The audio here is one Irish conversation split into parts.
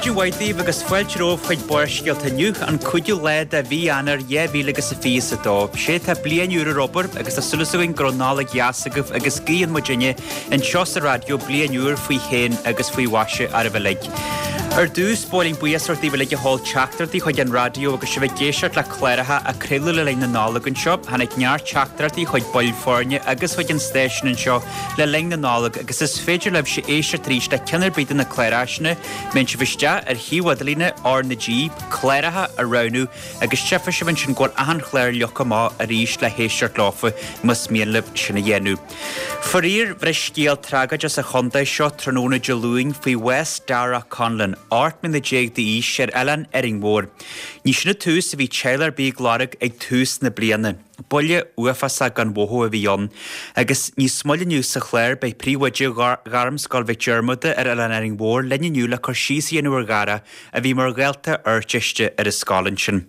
Maidin mhaith daoibh agus fáilte romhaibh chuig Barrscéalta inniu, an 5ú lá de mhí Eanáir 2022. Sé tá bliain úr ar obair agus tá súil againn go raibh Nollaig dheas agaibh agus guíonn muidinne anseo sa raidió bliain úr faoi shéan agus faoi mhaise oraibh uilig. Ar dtús, ba mhaith linn buíochas a thabhairt daoibh uilig a sheol teachtaireachtaí chuig an raidió agus sibh ag éisteacht le cláracha a craoladh le linn na Nollag anseo. Tháinig neart teachtaireachtaí chuig baill foirne agus chuig an stáisiún anseo le linn na Nollag agus is féidir libhse éisteacht arís le ceann ar bith de na cláracha sin. Má théann sibh isteach ar shuíomh idirlíne R na G, cláracha a roghnú agus tchífidh sibh ansin go bhfuil achan chlár leagtha amach arís le héisteacht leofa más mian libh sin a dhéanamh. Faraor, bhris scéal tragóideach sa chontae seo tráthnóna Dé Luain faoi bhás Darragh Conlon, 18 mbliana d'aois, ar oileán Árainn Mhór. Ní sin an tús a bhí teaghlach ar bith ag lorg ag tús na bliana. Buille uafásach gan mhothú a bhí ann. Agus níos moille inniu sa chlár beidh príomhoide Ghairmscoil Mhic Diarmada ar Oileán Árainn Mhór linn inniu le cur síos a dhéanamh ar Dharragh a bhí mar dhalta Ardteiste ar an scoil ansin.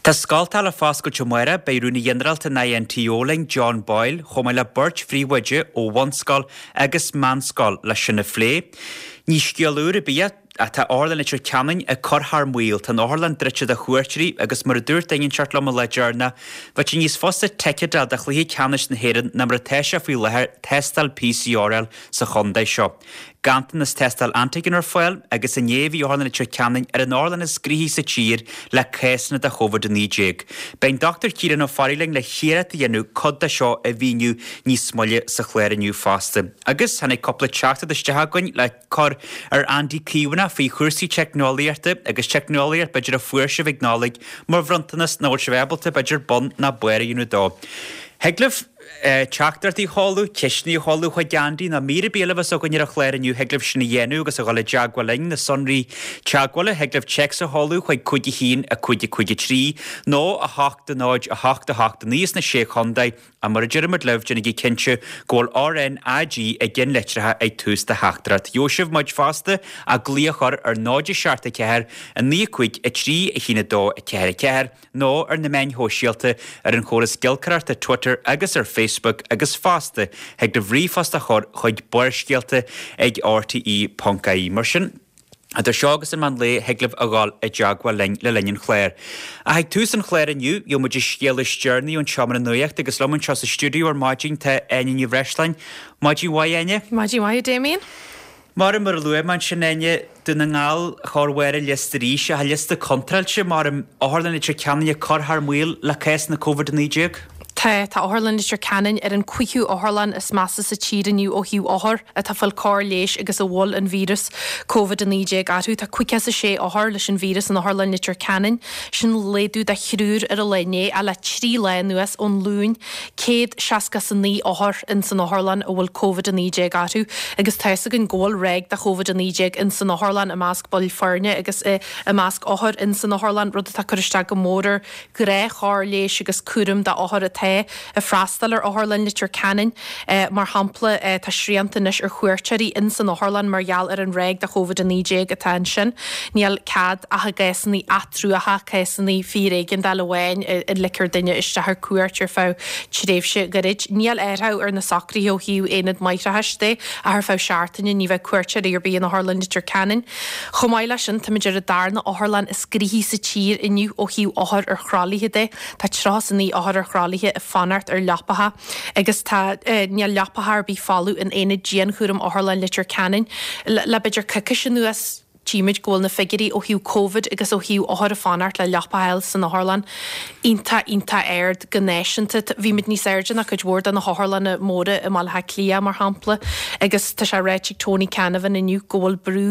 Tá scoltacha le foscailt amárach, beidh Rúnaí Ginearálta an INTO linn, John Boyle, chomh maith le beirt phríomhoide ó bhunscoil agus meánscoil le sin a phlé. Ní scéal úr ar bith é, ach tá Otharlann Leitir Ceanainn ag cur thar maoil. Tá an otharlann druidte do chuairteoirí agus mar a dúirt duine inteacht liom an lá deireanach, bheadh sé níos fusa ticéad a fháil do chluiche ceannais na hÉireann ná mar atá sé faoi láthair tástáil PCR a fháil sa chontae seo. Ganntanas tástáil antigen ar fáil agus inné bhí Otharlann Leitir Ceanainn ar an otharlann is gnoithí sa tír le cásanna de Covid-19. Beidh an Dr Ciarán Ó Fearraigh linn le hiarracht a dhéanamh cuid de seo a mhíniú níos moille sa chlár inniu fosta. Agus tháinig cúpla teachtaireacht isteach againn le cur ar Andy Caomhánach faoi chúrsaí teicneolaíochta agus teicneolaíocht b'fhéidir a fuair sibh ag Nollaig mar bhronntanas nach bhfuil sibh ábalta b'fhéidir bun ná barr a dhéanamh dó. Thig libh teachtaireachtaí a sheoladh, ceisteanna a sheoladh chuig Andy nó mír ar bith eile a bheas againn ar an chlár inniu, thig libh sin a dhéanamh agus a dhul i dteagmháil linn, na sonraí teagmhála, thig libh téacs a sheoladh chuig 5 1 5 5 3 nó 8 0 8 8 9 sna Sé Chontae Ach mar a deirimid libh, déanaigí cinnte go bhfuil RnaG i gceannlitreacha ag tús do theachtaireacht. Gheobhaidh sibh muid fosta ach glaoch a chur ar 0 7 4 9 5 3 1 2 4 4 nó ar na meáin shóisialta ar an chóras giolcaireachta Twitter agus ar Facebook agus fosta thig libh ríomhphost a chur chuig barrscéalta ag rte.ie. Mar sin. Idir seo agus an meán lae thig libh a dhul i dteagmháil linn le linn an chláir. Ach ag tús an chláir inniu, gheobhaidh muid an scéal is deireanaí ón tseomra nuachta agus liom anseo sa stiúideo ar maidin tá Áine Ní Bhreisleáin. Maidin mhaith, Áine. Maidin mhaith, a Damien. Mar mar a luaigh mé ansin, Áine, Dún na nGall chóir bharr an liosta arís, ach an liosta contráilte, mar Otharlann Leitir Ceanainn ag cur thar maoil le cásanna Covid-19. Tá, tá Otharlann Leitir Ceanainn ar an cúigiú otharlann is measa sa tír inniu ó thaobh othar atá ag fáil cóir leighis agus a bhfuil an víreas Covid-19 orthu. Tá 56 othar leis an víreas in Otharlann Leitir Ceanainn. Sin laghdú de thriúr ar an lá inné ach le 3 lá anuas, ón Luan, 169 othar in san otharlann a bhfuil Covid-19 orthu agus tá fhios againn go bhfuil ráig de Covid-19 in san otharlann i measc baill foirne agus i measc othar in san otharlann, rud atá ag cur isteach go mór ar ghnáthchóir leighis agus cúram d'othair atá ag freastal ar Otharlann Leitir Ceanainn. Mar shampla, tá srianta anois ar chuairteoirí in san otharlann mar gheall ar an ráig de Covid-19 atá ansin. Níl cead ach i gcásanna atruacha, cásanna fíor-éigeandála amháin a ligtear duine isteach ar cuairt ar feadh tréimhse ghairid. Níl athrú ar na socruithe ó thaobh aonad máithreachais de ach ar feadh seachtaine ní bheidh cuairteoirí ar bith in Otharlann Leitir Ceanainn. Chomh maith leis sin, táimid ar an darna otharlann is gnoithí sa tír inniu ó thaobh othar ar thralaithe de. Tá 39 othar ar thralaithe ag fanacht ar leapacha agus tá, níl leapacha ar bith folamh in aonad dianchúraim Otharlann Leitir Ceanainn. Le b'fhéidir coicís anuas, tchímid go bhfuil na figiúirí ó thaobh Covid agus ó thaobh othar ag fanacht le leapa a fháil san otharlann iontach, iontach ard go náisiúnta. Bhí muid níos airde ná cuid mhór de na hotharlanna móra i mBaile Átha Cliath, mar shampla, agus tá sé ráite ag Tony Canavan inniu go bhfuil brú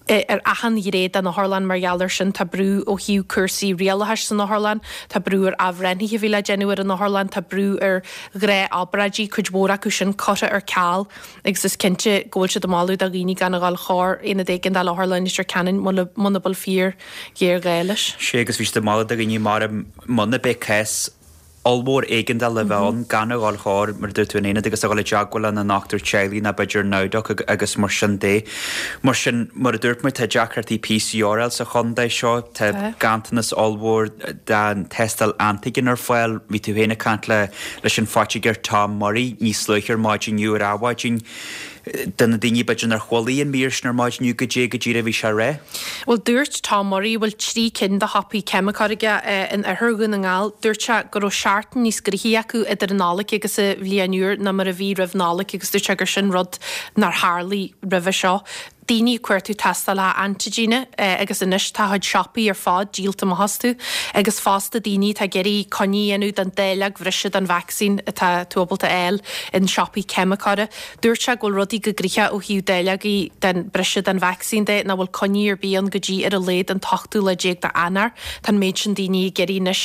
ar achan ghné den otharlann mar gheall air sin. Tá brú ó thaobh cúrsaí rialachais san otharlann, tá brú ar athbhreithnithe a bhí le déanamh ar an otharlann, tá brú ar ghnáthobráidí, cuid mhór acu sin curtha ar ceal agus is cinnte go bhfuil siad ag moladh do dhaoine gan a dhul chóir aonad éigeandála Otharlann Leitir Ceanainn muna bhfuil fíor-ghéarghá leis. Sea, agus bhí siad ag moladh do dhaoine mar muna mbeidh cás ollmhór éigeandála a bheith ann, gan a dhul chóir, mar a dúirt tú, an aonad agus a dhul i dteagmháil lena ndochtúir teaghlaigh nó b'fhéidir NowDoc agus mar sin de. Mar sin, mar a dúirt muid, tá deacrachtaí PCR a fháil sa chontae seo, tá ganntanas ollmhór den tástáil antigen ar fáil. Bhí tú féin ag caint le leis an phoitigéir Tom Murray níos luaithe ar maidin inniu ar Adhmhaidin. Do na daoine b'fhéidir nár chualaigh an mír sin ar maidin inniu, goidé go díreach a bhí sé a rá? Bhuel, dúirt Tom Murray, a bhfuil 3 cinn de shiopaí ceimiceoir aige in oirthear Dhún na nGall, dúirt sé go raibh seachtain níos gnoithí acu idir an Nollaig agus an Bhliain Úr ná mar a bhí roimh Nollaig agus dúirt sé gur sin rud nár tharlaigh roimhe seo. Daoine ag cuartú tástálacha antaigine agus anois tá a chuid siopaí ar fad díolta amach astu agus fosta daoine atá ag iarraidh coinne a dhéanamh don dáileog bhreise den vacsaín atá tú ábalta a fháil in siopaí ceimiceora. Dúirt sé go bhfuil rudaí go gnoitheach ó thaobh dáileogaí den breise den vacsaín de, nach bhfuil coinní ar bith ann go dtí ar a laghad an t-ochtú lá déag d'Eanáir. Tá an méid sin daoine ag iarraidh anois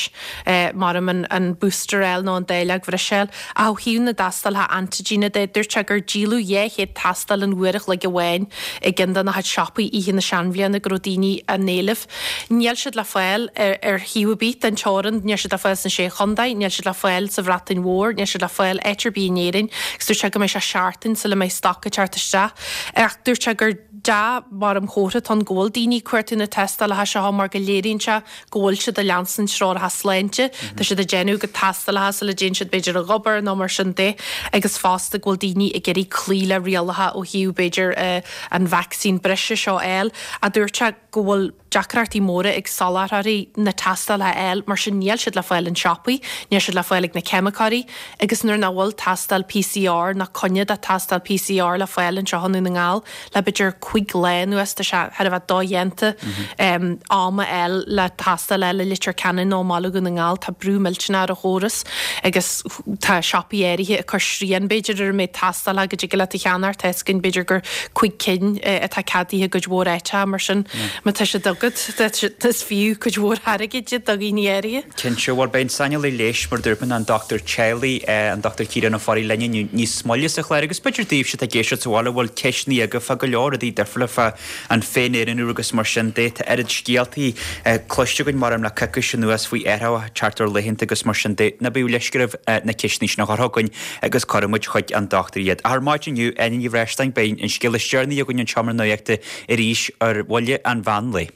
maram an booster a fháil nó an dáileog bhreise a fháil. Ach ó thaobh na dtástálacha antaigine de, dúirt sé gur díoladh 200 tástáil in uair a chloig amháin i gceann de na chuid siopaí oíche na seanbhliana go raibh daoine á n-éileamh. Níl siad le fáil ar thaobh ar bith den teorainn, níl siad le fáil sna Sé Chontae, níl siad le fáil sa Bhreatain Mhór, níl siad le fáil áit ar bith in Éirinn agus dúirt sé go mbeidh sé seachtain sula mbeidh stoc ag teacht isteach. Ach dúirt sé gur dea mar an chomhartha atá ann go bhfuil daoine ag cuartú na tástálacha seo mar go léiríonn sé go bhfuil siad ag leanstan treoracha sláinte, tá siad ag déanamh a gcuid tástálacha sula dtéann siad b'fhéidir ag obair nó mar sin de agus fosta go bhfuil daoine ag iarraidh cloí le rialacha ó thaobh b'fhéidir an vacsaín breise seo a fháil. Ach dúirt sé go bhfuil deacrachtaí móra ag soláthróirí na tástálacha a fháil, mar sin níl siad le fáil in siopaí, níl siad le fáil ag na ceimiceoirí agus nuair nach bhfuil tástáil PCR ná coinne do tástáil PCR le fáil anseo i nDún na nGall le b'fhéidir 5 lá anuas, tá sé thar a bheith dodhéanta am a fháil le tástáil a fháil i Leitir Ceanainn nó i mBaile Dhún na nGall, tá brú millteanach ar an chóras agus tá siopaí áirithe ag cur srian b'fhéidir ar an méid tástálacha go dtig leat a cheannacht, tá fhios againn b'fhéidir gur 5 cinn atá ceadaithe i gcuid mhór áiteacha mar sin má tá siad agat is fiú cuid mhór airgid iad do dhaoine áirithe. Cinnte, bhuel beidh an saineolaí leighis mar a dúirt mé an dochtúir teaghlaigh, an Dr Ciarán Ó Fearraigh linn inniu níos moille sa chlár agus b'fhéidir daoibhse atá ag éisteacht sa bhaile a bhfuil ceisteanna agaibh fá go leor rudaí difriúla fá an féin-aonarú agus mar sin de. Tá oiread scéaltaí cloiste againn maram le coicís anuas faoi athrú teacht ar laethanta agus mar sin de. Ná bíodh leisce oraibh na ceisteanna sin a chur chugainn agus cuirfidh muid chuig an dochtúir iad. Ach ar maidin inniu, Áine Ní Bhreisleáin, beidh an scéal is deireanaí againn an tSeomra Nuachta arís ar bhuille an mheán lae.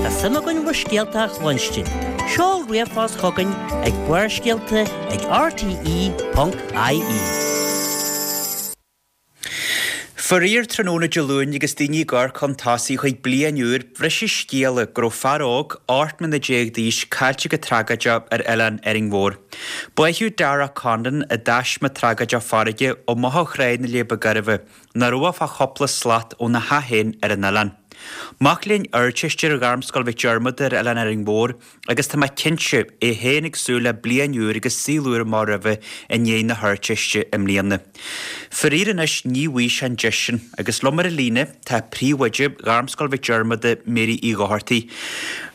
Tá suim againn bhur scéalta a chluinstin. Seol ríomhphost chugainn ag barrscéalta ag rte.ie. Faraor, tráthnóna Dé Luain agus daoine ag amharc chun tosaigh chuig bliain úr, bhris an scéala go raibh fear óg, 18 mbliana d'aois, caillte go tragóideach ar oileán Árainn Mhór. Báitheadh Darragh Condon i dtaisme tragóideach farraige ó Bhothach Thráigh na Leaba Gairbhe, nach raibh ach fá chúpla slat óna theach féin ar an oileán. Mac léinn Ardteiste ar Ghairmscoil Mhic Diarmada ar Oileán Árainn Mhór agus tá mé cinnte, é féin ag súil le bliain úr agus saol úr amach roimhe i ndiaidh na hArdteiste i mbliana. Faraor anois ní bhfaighidh sé an deis sin agus liom ar an líne tá príomhoide Ghairmscoil Mhic Diarmada, Mary Uí Dhochartaigh.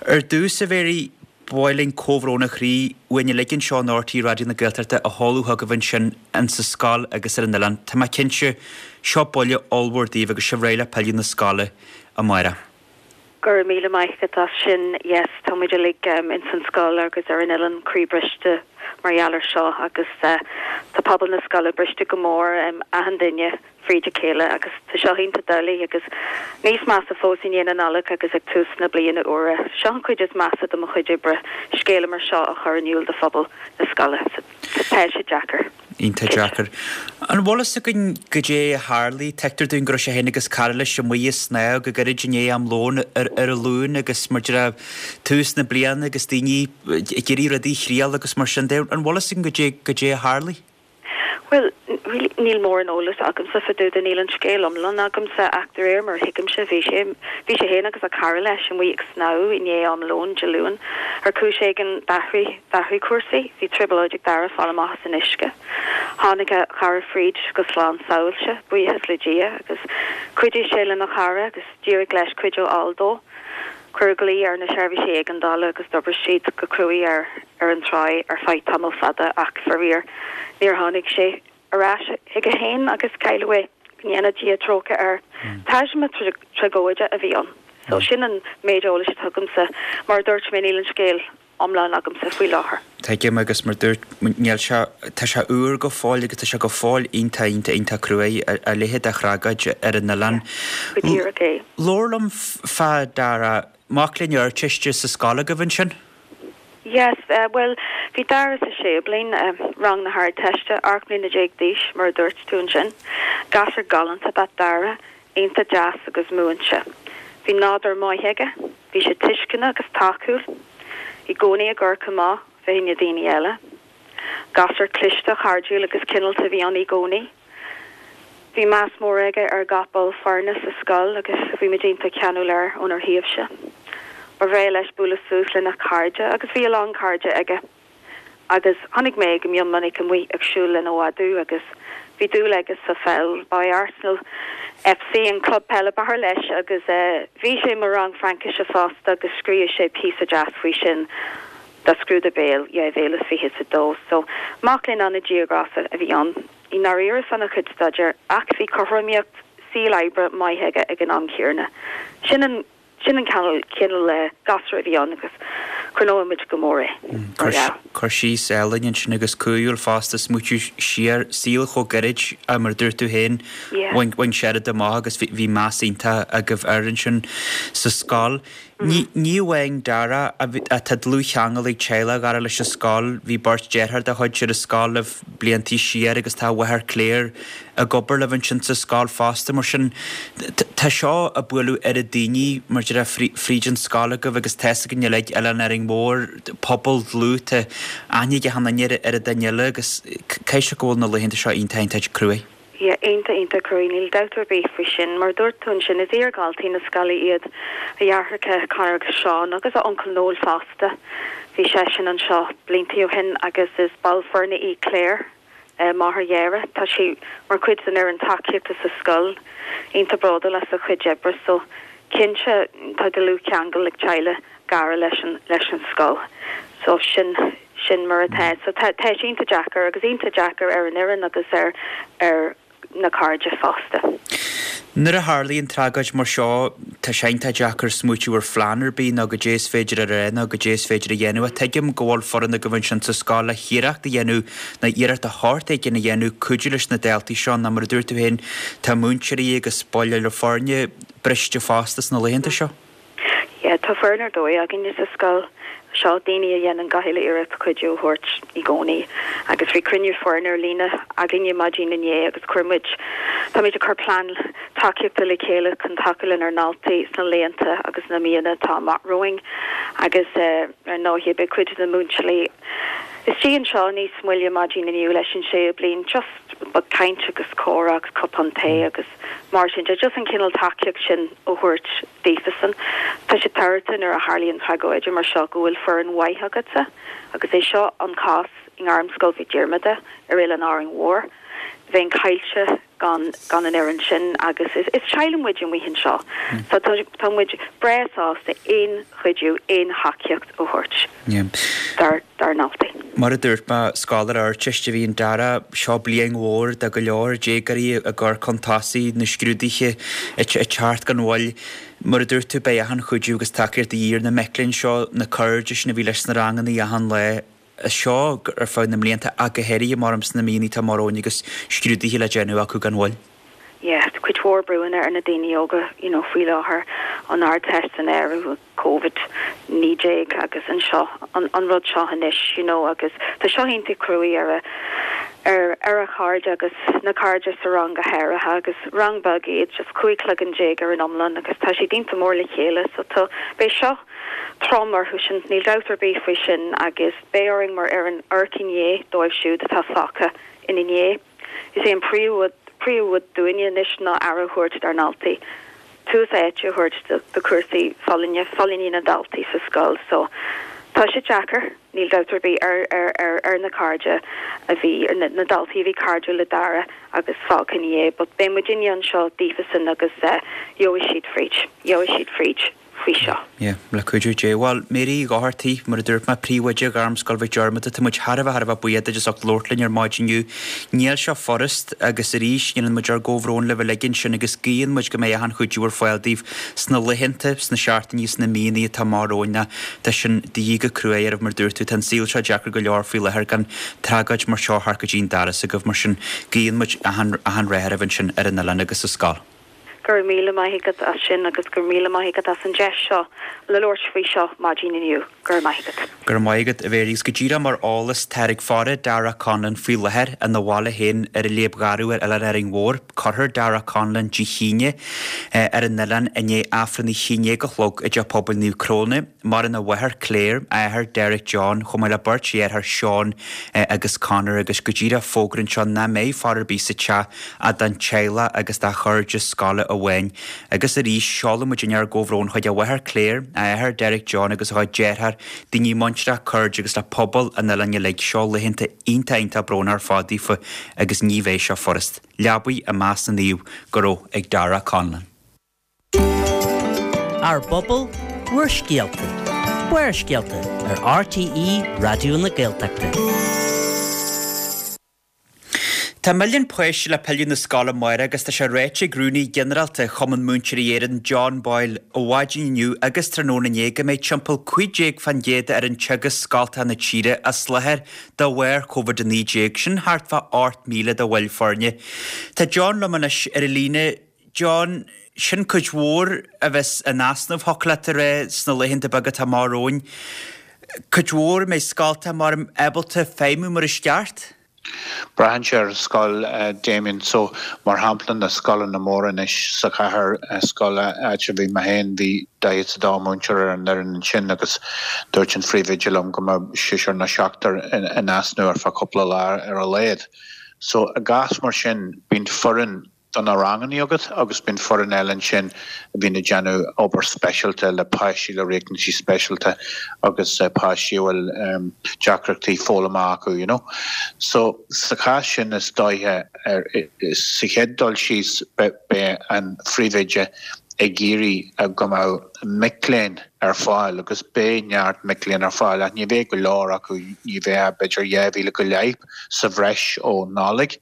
Ar dtús, a Mhary, Ba mhaith linn comhbhrón ó chroí uainn uilig anseo in RTÉ Raidió na Gaeltachta a sheoladh chugaibh ansin in sa scoil agus ar an oileán. Tá mé cinnte, seo buille ollmhór daoibh agus sibh réidh le pilleadh na scoile amárach. Go raibh míle maith agat as sin. Yes, tá muid uilig ins an scoil agus ar an oileán croí briste mar gheall ar seo agus tá pobal na scoile briste go mór, achan duine. fríd a chéile agus tá seo iontach doiligh agus níos measa fós i ndiaidh na Nollag agus ag tús na bliana úire. Seo an chuid is measa de mo chuid oibre, scéala mar seo a chur in iúl do phobal na scoile. So tá sé deacair. Iontach deacair. An bhfuil fhios againn goidé a tharlaigh? Tuigtear dúinn go raibh sé féin agus cara leis amuigh ag snámh go gairid i ndiaidh am lóin ar an Luan agus mar a déarfá tús na bliana agus daoine ag iarraidh rudaí a thriail agus mar sin de. An bhfuil fhios againn goidé goidé a tharlaigh? Bhuel, really, níl mórán eolais agamsa fá dtaobh de, níl an scéal iomlán agamsa ach de réir mar a thuigimse, bhí sé, bhí sé féin agus a chara leis amuigh ag snámh i ndiaidh am lóin Dé Luain. Ar chúis éigin, d'athraigh, d'athraigh cúrsaí, bhí trioblóid ag Dara fáil amach as an uisce. Tháinig a chara fríd go slán sábháilte, buíochas le Dia, agus chuidigh sé lena chara agus d'éirigh leis cuidiú a fháil dó. Cuireadh glao ar na seirbhísí éigeandála agus d'oibrigh siad go cruaidh air ar an tráigh ar feadh tamall fada ach faraor níor tháinig sé ar ais chuige féin agus cailleadh é. Go ndéana Dia trócaire air. Taisme tragóide a bhí ann. So sin an méid eolais atá agamsa. Mar a dúirt mé níl an scéal iomlán agamsa faoi láthair. Tuigim agus mar dúirt, níl sé, tá sé úr go fóill agus tá sé go fóill iontach, iontach, iontach cruaidh, a leithéid de thragóid ar an oileán. Go díreach é. Labhair liom fá Dara, mac léinn Ardteiste sa scoil agaibh ansin? Yes, bhuel, Bhí Dara sa séú bliain, rang na hArdteiste, 18 mbliana d'aois, mar a dúirt tú ansin. Gasúr galánta ab ea Dara, iontach deas agus múinte. Bhí nádúr maith aige, bhí sé tuisceanach agus tacúil, i gcónaí ag amharc amach fá choinne daoine eile. Gasúr cliste, cairdiúil agus cineálta a bhí ann i gcónaí. Bhí meas mór aige ar gach ball foirne sa scoil agus bhí muid iontach ceanúil air ónár thaobhse. Ba bhreá leis bualadh suas lena chairde agus bhí a lán cairde aige agus chonaic mé go mion minic amuigh ag siúl lena mhadadh agus bhí dúil aige sa pheil. Ba é Arsenal FC an club peile ba fhearr leis agus bhí sé i mo rang Fraincise fosta agus scríobh sé píosa deas faoi sin do scrúdú béil 2022. So, mac léinn an-díograiseach a bhí ann. I ndáiríre faoina chuid staidéir ach bhí cothromaíocht saoil oibre maith aige ag an am céanna. Sin an sin an cineál cineál gasúir a bhí ann agus cuimhneoidh muid go mór é mar gheall. Cur síos álainn ansin agus cumhúil fosta, smaoitiú siar, saol chomh gairid mar a dúirt tú féin, bhain sé oiread amach agus bhí meas iontach agaibh air ansin sa scoil. Ní amháin Dara, tá dlúthcheangal ag teaghlach Dhara leis an scoil. Bhí beirt deartháir dá chuid ar an scoil libh bliantaí siar agus tá a mháthair Claire ag obair libh ansin sa scoil fosta. Mar sin, tá seo ag bualadh oiread daoine, mar a déarfá, fríd an scoil agaibh agus tá fhios againn uilig, Oileán Árainn Mhór, pobal dlúth, tá aithne ag achan duine ar an duine eile agus caithfidh sé go bhfuil na laethanta seo iontach iontach cruaidh. Yeah, iontach, iontach cruaidh, níl dabht ar bith faoi sin. Mar a dúirt tú ansin, is iar-dhaltaí na scoile iad a dheartháireacha Conor agus Seán agus a uncail Noel fosta. Bhí seisean anseo bliantaí ó shin agus is ball foirne í Claire, máthair Dhara. Tá sí mar chuid den fhoireann tacaíochta sa scoil, iontach bródúil as a cuid oibre so cinnte tá dlúthcheangal ag teaghlach Dhara leis an, leis an scoil. So sin. Sin mar atá. So tá, tá sé iontach deacair agus iontach deacair ar an fhoireann agus ar, ar na cairde fosta. Nuair a tharlaíonn tragóid mar seo, tá sé iontach deacair smaoitiú ar phlean ar bith nó goidé is féidir a rá nó goidé is féidir a dhéanamh. Ach tuigim go bhfuil foireann agaibh ansin sa scoil le hiarracht a dhéanamh nó iarracht de shórt éigin a dhéanamh cuidiú leis na daltaí seo nó mar a dúirt tú féin, tá múinteoirí agus baill eile foirne briste fosta sna laethanta seo. Yeah, tá foireann ar dóigh againne sa scoil seo, daoine a dhéanann gach uile iarracht cuidiú a thabhairt i gcónaí. Agus bhí cruinniú foirne ar líne againne maidin inné agus chuir muid, táimid ag cur plean tacaíochta le chéile chun tacú lenár ndaltaí sna laethanta agus na míonna atá amach romhainn. Agus ar ndóigh beidh cuid de na múinteoirí istigh anseo níos moille maidin inniu leis an séú bliain, just caint agus comhrá agus cupán tae agus mar sin de, just an cineál tacaíocht sin a thabhairt. daofasan. Tá sé tábhachtach nuair a tharlaíonn tragóide mar seo go bhfuil foireann mhaith agatsa agus é seo an cás i nGairmscoil Mhic Diarmada ar Oileán Árainn Mhór. Bheinn caillte gan gan an fhoireann sin agus is is teaghlach muid amuigh anseo so tá tá muid breá sásta aon chuidiú, aon thacaíocht a thabhairt dár dár ndaltaí. Mar a dúirt mé, scoláire Ardteiste a bhí in Dara. Seo bliain mhór do go leor déagóirí ag cur chun tosaigh, na scrúduithe ag teacht gan mhoill. Mar a dúirt tú, beidh achan chuidiú agus tacaíocht de dhíth ar na mic léinn seo, na cairde sin a bhí leis sna ranganna achan lá. Seo ar feadh na mblianta ach go háirithe mar sna míonna atá amach romhainn agus scrúduithe le déanamh acu gan mhoill. Yeah, tá cuid mhór brúanna ar na daoine óga, you know, faoi láthair, an Ardteist san áireamh. Covid 19 agus anseo an an rud seo anois you know agus tá seo iontach cruaidh ar a ar ar a chairde agus na cairde sa rang go háirithe agus rang beag iad just 15 cloigeann ar an iomlán agus tá siad iontach mór le chéile so tá beidh seo trom orthu sin níl dabht ar bith faoi sin agus beidh orainn mar fhoireann amharc i ndiaidh dóibh siúd atá fágtha ina ndiaidh. Is é an príomh príomhrud dúinne anois ná aire a thabhairt dár ndaltaí. tús áite a thabhairt do chúrsaí folláine, folláine na ndaltaí sa scoil so tá sé deacair, níl dabht ar bith, ar ar ar ar na cairde a bhí, ar na na daltaí a bhí cairdiúil le Dara agus fágtha ina dhiaidh but beidh muidinne anseo daofasan agus gheobhaidh siad fríd, gheobhaidh siad fríd. faoi seo. Yeah, le cuidiú Dé. Bhuel, Mary Uí Dhochartaigh, mar a dúirt mé, Príomhoide Ghairmscoil Mhic Diarmada, tá muid thar a bheith, thar a bheith buíoch duit as ucht labhairt linn ar maidin inniu. Níl seo furast agus arís, déanann muid ár gcomhbhrón libh uilig ansin agus guíonn muid go mbeidh achan chuidiú ar fáil daoibh sna laethanta, sna seachtainí, sna míonna atá amach romhainn. Tá sin de dhíth go cruaidh oraibh, mar a dúirt tú, tá an saol seo deacair go leor faoi láthair gan tragóid mar seo thart go dtí an doras agaibh, mar sin guíonn muid achan, achan rath oraibh ansin ar an oileán agus sa scoil. Go raibh míle maith agat as sin agus go raibh míle maith agat as an deis seo le labhairt faoi seo maidin inniu. Go raibh maith agat. Go raibh maith agat, a Mhary. Agus go díreach mar eolas, táthar ag faire Darragh Conlon faoi láthair ina bhaile féin ar an Léib Gharbh ar Oileán Árainn Mhór. Cuirfear Darragh Conlon Dé hAoine ar an oileán i ndiaidh Aifreann a 11 a chlog i dTeach Pobail Naomh Cróna. Maireann a mháthair Claire, a athair Derek John, chomh maith le beirt dheartháir Seán agus Conor agus go díreach fógra anseo nach mbeidh faire ar bith sa teach ach don teaghlach agus dá chairde scoile amháin. Agus arís, seolann muidinne ár gcomhbhrón chuig a mháthair Claire, a athair Derek John agus a chuid dearthár, daoine muinteartha, cairde agus le pobal an oileáin uilig. Seo laethanta iontach iontach brónach ar fad daofa agus ní bheidh seo furast. Leabaidh i measc na naomh go raibh ag Darragh Conlon. Ár bpobal, bhur scéalta. Barrscéalta ar RTÉ Raidió na Gaeltachta. Tá milliún páiste le pilleadh na scoile amárach agus tá sé ráite ag Rúnaí Ginearálta Chumann Múinteoirí Éireann, John Boyle, ó mhaidin inniu agus tráthnóna inné go mbeidh timpeall 15 fán gcéad d'fhoireann teagaisc scoltacha na tíre as láthair de bharr Covid-19, sin thart fá 8,000 de bhaill foirne. Tá John liom anois ar an líne. John, Sin cuid mhór a bheas in easnamh, thiocfadh leat a rá, sna laethanta beaga atá amach romhainn. Cuid mhór, an mbeidh scoltacha mar ábalta feidhmiú mar is ceart? Braitheann sé ar an scoil, Damien. So, mar shampla, na scoileanna móra anois sa chathair, scoil áit a bhí mé féin, bhí 42 múinteoir ar an fhoireann ansin agus dúirt an phríomhoide liom go mbeadh seisear nó seachtar in easnamh ar feadh cúpla lá ar a laghad. So, i gcás mar sin, bíonn foireann do na ranganna agat agus bíonn foireann eile ansin a bhíonn ag déanamh obair speisialta le páistí le riachtanaisí speisialta agus páistí a bhfuil deacrachtaí foghlama acu, you know. So sa chás sin is dóiche ar sa chéad dul síos beidh an phríomhoide ag iarraidh go mbeadh mic léinn ar fáil agus beidh neart mic léinn ar fáil ach ní bheidh go leor acu, ní bheidh ach b'fhéidir 2,000 go leith sa bhreis ó Nollaig.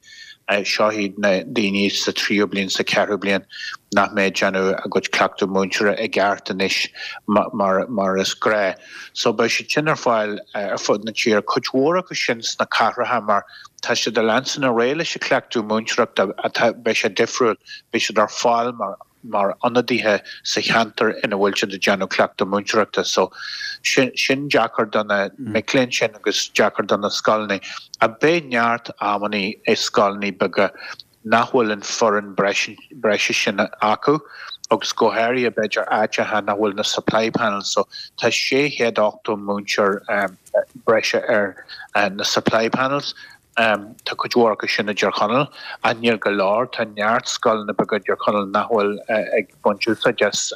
Seo iad na daoine sa tríú bliain, sa cheathrú bliain nach mbeidh ag déanamh a gcuid cleachtadh múinteora i gceart anois mar mar is gnáth. So beidh siad sin ar fáil ar fud na tíre, cuid mhór acu sin sna cathracha mar tá siad ag leanstan ar aghaidh leis an chleachtadh múinteoireachta atá, beidh sé difriúil, beidh siad ar fáil mar mar ionadaithe sa cheantar ina bhfuil siad ag déanamh cleachtadh múinteoireachta. So, sin, sin deacair do na mic léinn sin agus deacair do na scoileanna. Ach beidh neart amannaí i scoileanna beaga nach bhfuil an foireann breise sin acu agus go háirithe b'fhéidir áiteacha nach bhfuil na supply panels. So, tá 680 múinteoir breise ar na supply panels. Tá cuid mhór acu sin i dTír Chonaill, ach níl go leor. Tá neart scoileanna beaga i dTír Chonaill nach bhfuil ag baint úsáid as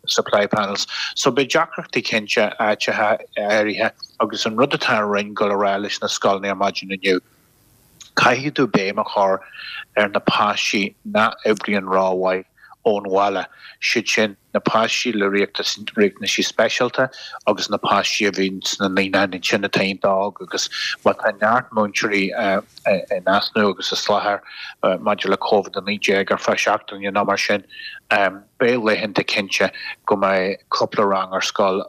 supply panels. So beidh deacrachtaí cinnte áiteacha áirithe agus an rud atá an Roinn ag dul a rá leis na scoileanna ar maidin inniu, caithfidh tú béim a chur ar na páistí nach oibríonn rómhaith ón bhaile, siad sin na páistí le riachtanaisí speisialta agus na páistí a bhíonn sna naíonáin ansin atá iontach óg agus má tá neart múinteoirí in easnamh agus as láthair maidir le Covid-19 ar feadh seachtaine nó mar sin, beidh laethanta cinnte go mbeidh cúpla rang ar scoil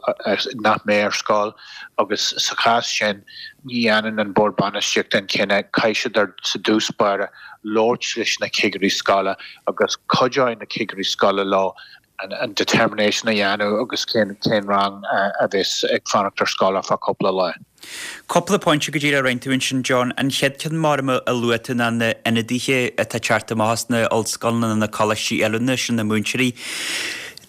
nach mbeidh ar scoil agus sa chás sin ní dhéanann an Bord Bainistíochta an cinneadh, caithfidh siad ar sa dtús báire labhairt leis na cigirí scoile agus cuideoidh na cigirí scoile leo an determination a dhéanamh agus cén cén rang a bheas ag fanacht ar scoil ar feadh cúpla lá. Cúpla pointe go díreach a rinne tú ansin John. An chéad ceann mar a luaigh tú ná na ionadaithe atá ag teacht amach as na ollscoileanna na coláistí oiliúna, sin na múinteoirí.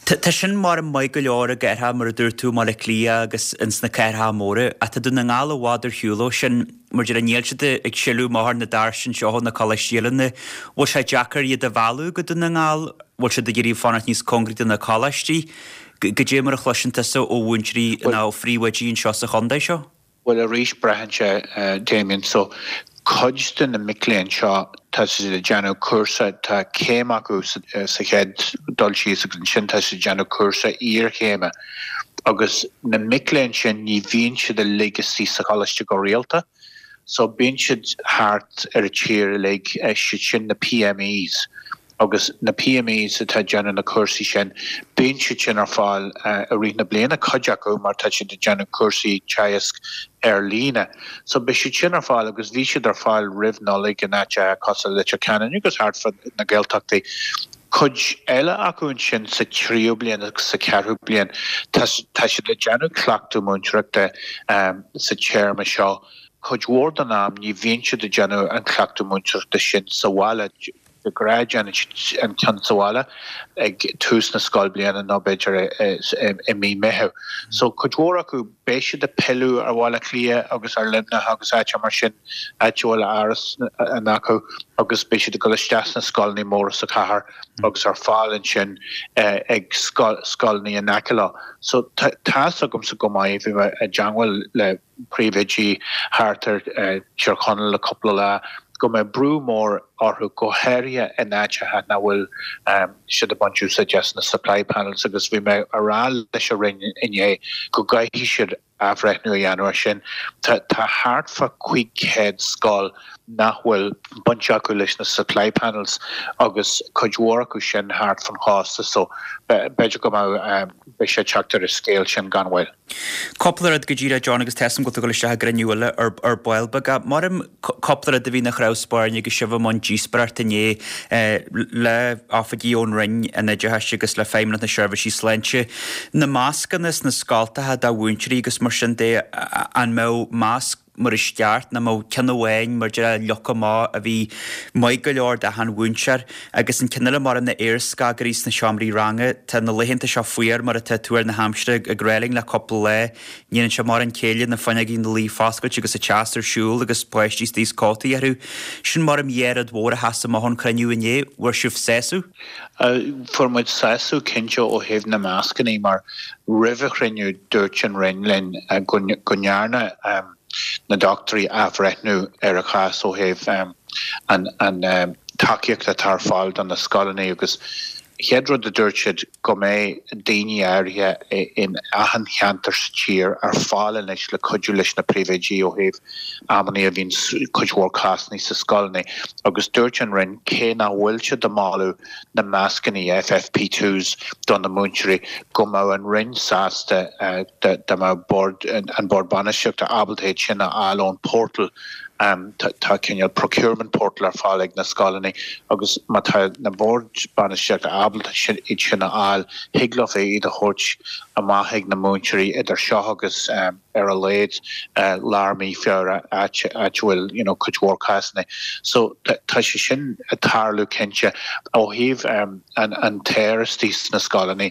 Tá sin mar maith go leor i gcathracha mar a dúirt tú, i mBaile Átha Cliath agus ins na cathracha móra ach tá Dún na nGall i bhfad ar shiúl ó sin. Mar a déarfá níl siad ag sileadh amach ar na doirse anseo ó na coláistí oiliúna. Bhfuil sé deacair iad a mhealladh go Dún na nGall? Bhfuil siad ag iarraidh fanacht níos cóngaraí do na coláistí? Goidé mar a chloiseann tusa ó mhúinteoirí nó ó phríomhoidí anseo sa chontae seo? Bhuel arís braitheann sé, Damien. So cuid de na mic léinn seo tá siad ag déanamh cúrsa, tá céim acu sa chéad dul síos agus ansin tá siad ag déanamh cúrsa iarchéime. Agus na mic léinn sin ní bhíonn siad uilig istigh sa choláiste go rialta so bíonn siad thart ar an tír uilig, siad sin na PMEs agus na PMEs atá ag déanamh na cúrsaí sin, bíonn siad sin ar fáil i rith na bliana, cuid acu mar tá siad ag déanamh cúrsaí teagasc ar líne. So beidh siad sin ar fáil agus bhí siad ar fáil roimh Nollaig in áiteacha cosúil le Leitir Ceanainn agus thart fá na Gaeltachtaí. Cuid eile acu ansin sa tríú bliain agus sa cheathrú bliain, tá siad ag déanamh cleachtadh múinteoireachta sa téarma seo. Cuid mhór den am ní bhíonn siad ag déanamh an cleachtadh múinteoireachta sin sa bhaile. De ghnáth déanann siad an ceann sa bhaile ag tús na scoilbhliana nó b'fhéidir i mí Meitheamh. So cuid mhór acu beidh siad ag pilleadh ar Bhaile Átha Cliath agus ar Luimneach agus áiteacha mar sin, áit a bhfuil áras acu agus beidh siad ag dul isteach sna scoileanna móra sa chathair agus ar fáil ansin ag scoileanna in aice leo. So tá's agamsa go maith, bhí mé i dteangmháil le príomhoidí thart ar Tír Chonaill le cúpla lá, go mbeidh brú mór orthu, go háirithe in áiteacha nach bhfuil siad ag baint úsáid as na supply panels agus bhí mé a rá leis an Roinn inné go gcaithfidh siad athbhreithniú a dhéanamh ar sin. Tá thart fá 500 scoil nach bhfuil baint acu leis na supply panels agus cuid mhór acu sin thart fan chósta so b'fhéidir go mbeidh beidh sé ag teacht ar an scéal sin gan mhoill. Cúpla rud go díreach, John, agus tá 'fhios a'm go bhfuil tú ag dul isteach i gcruinniú eile ar ball beag. Maram cúpla rud a bhí ina chnámh spairne agus sibh i mbun díospóireachta inné le oifigigh ón Roinn an Oideachais agus le Feidhmeannacht na Seirbhísí Sláinte. Na mascanna sna scoltacha do mhúinteoirí agus mar sin de, an mbeadh masc mar is ceart, nó an mbeadh ceann amháin mar déarfá leoga amach a bhí maith go leor d'achan mhúinteoir. Agus an ceann eile mar na aerscagairí sna seomraí ranga, tá na laethanta seo fuar mar atá tuar na haimsire ag rá linn le cúpla lá. Ní dhéanann sé mórán céille na fuinneogaí ina luí foscailte agus an teas ar siúl agus páistí istigh is cótaí orthu. Sin maram dhá rud mhór a sheas amach ón chruinniú inné. Bhfuair sibh sásamh? Fuair muid sásamh cinnte ó thaobh na mascannaí mar roimh an chruinniú dúirt an Roinn linn go ndearna na dochtúirí athbhreithniú ar an chás ó thaobh an tacaíocht atá ar fáil do na scoileanna agus chéad rud a dúirt siad go mbeidh daoine áirithe in achan cheantar sa tír ar fáil anois le cuidiú leis na príomhoidí ó thaobh amannaí a bhíonn cuid mhór cásanna sa scoileanna agus dúirt an Roinn cé nach bhfuil siad ag moladh na mascanna FFP2s do na múinteoirí go mbeadh an Roinn sásta dá mbeadh bord an Bord Bainistíochta ábalta iad sin a fháil ón portal Tá cineál procurement portal ar fáil ag na scoileanna agus má tá na boird bainistíochta ábalta iad sin a fháil, thig leo iad a thabhairt amach ag na múinteoirí idir seo agus ar a laghad lár mí Feabhra, áit a bhfuil you know cuid mhór cásanna. So tá sé sin ag tarlú cinnte. Ó thaobh an t-aer istigh sna scoileanna,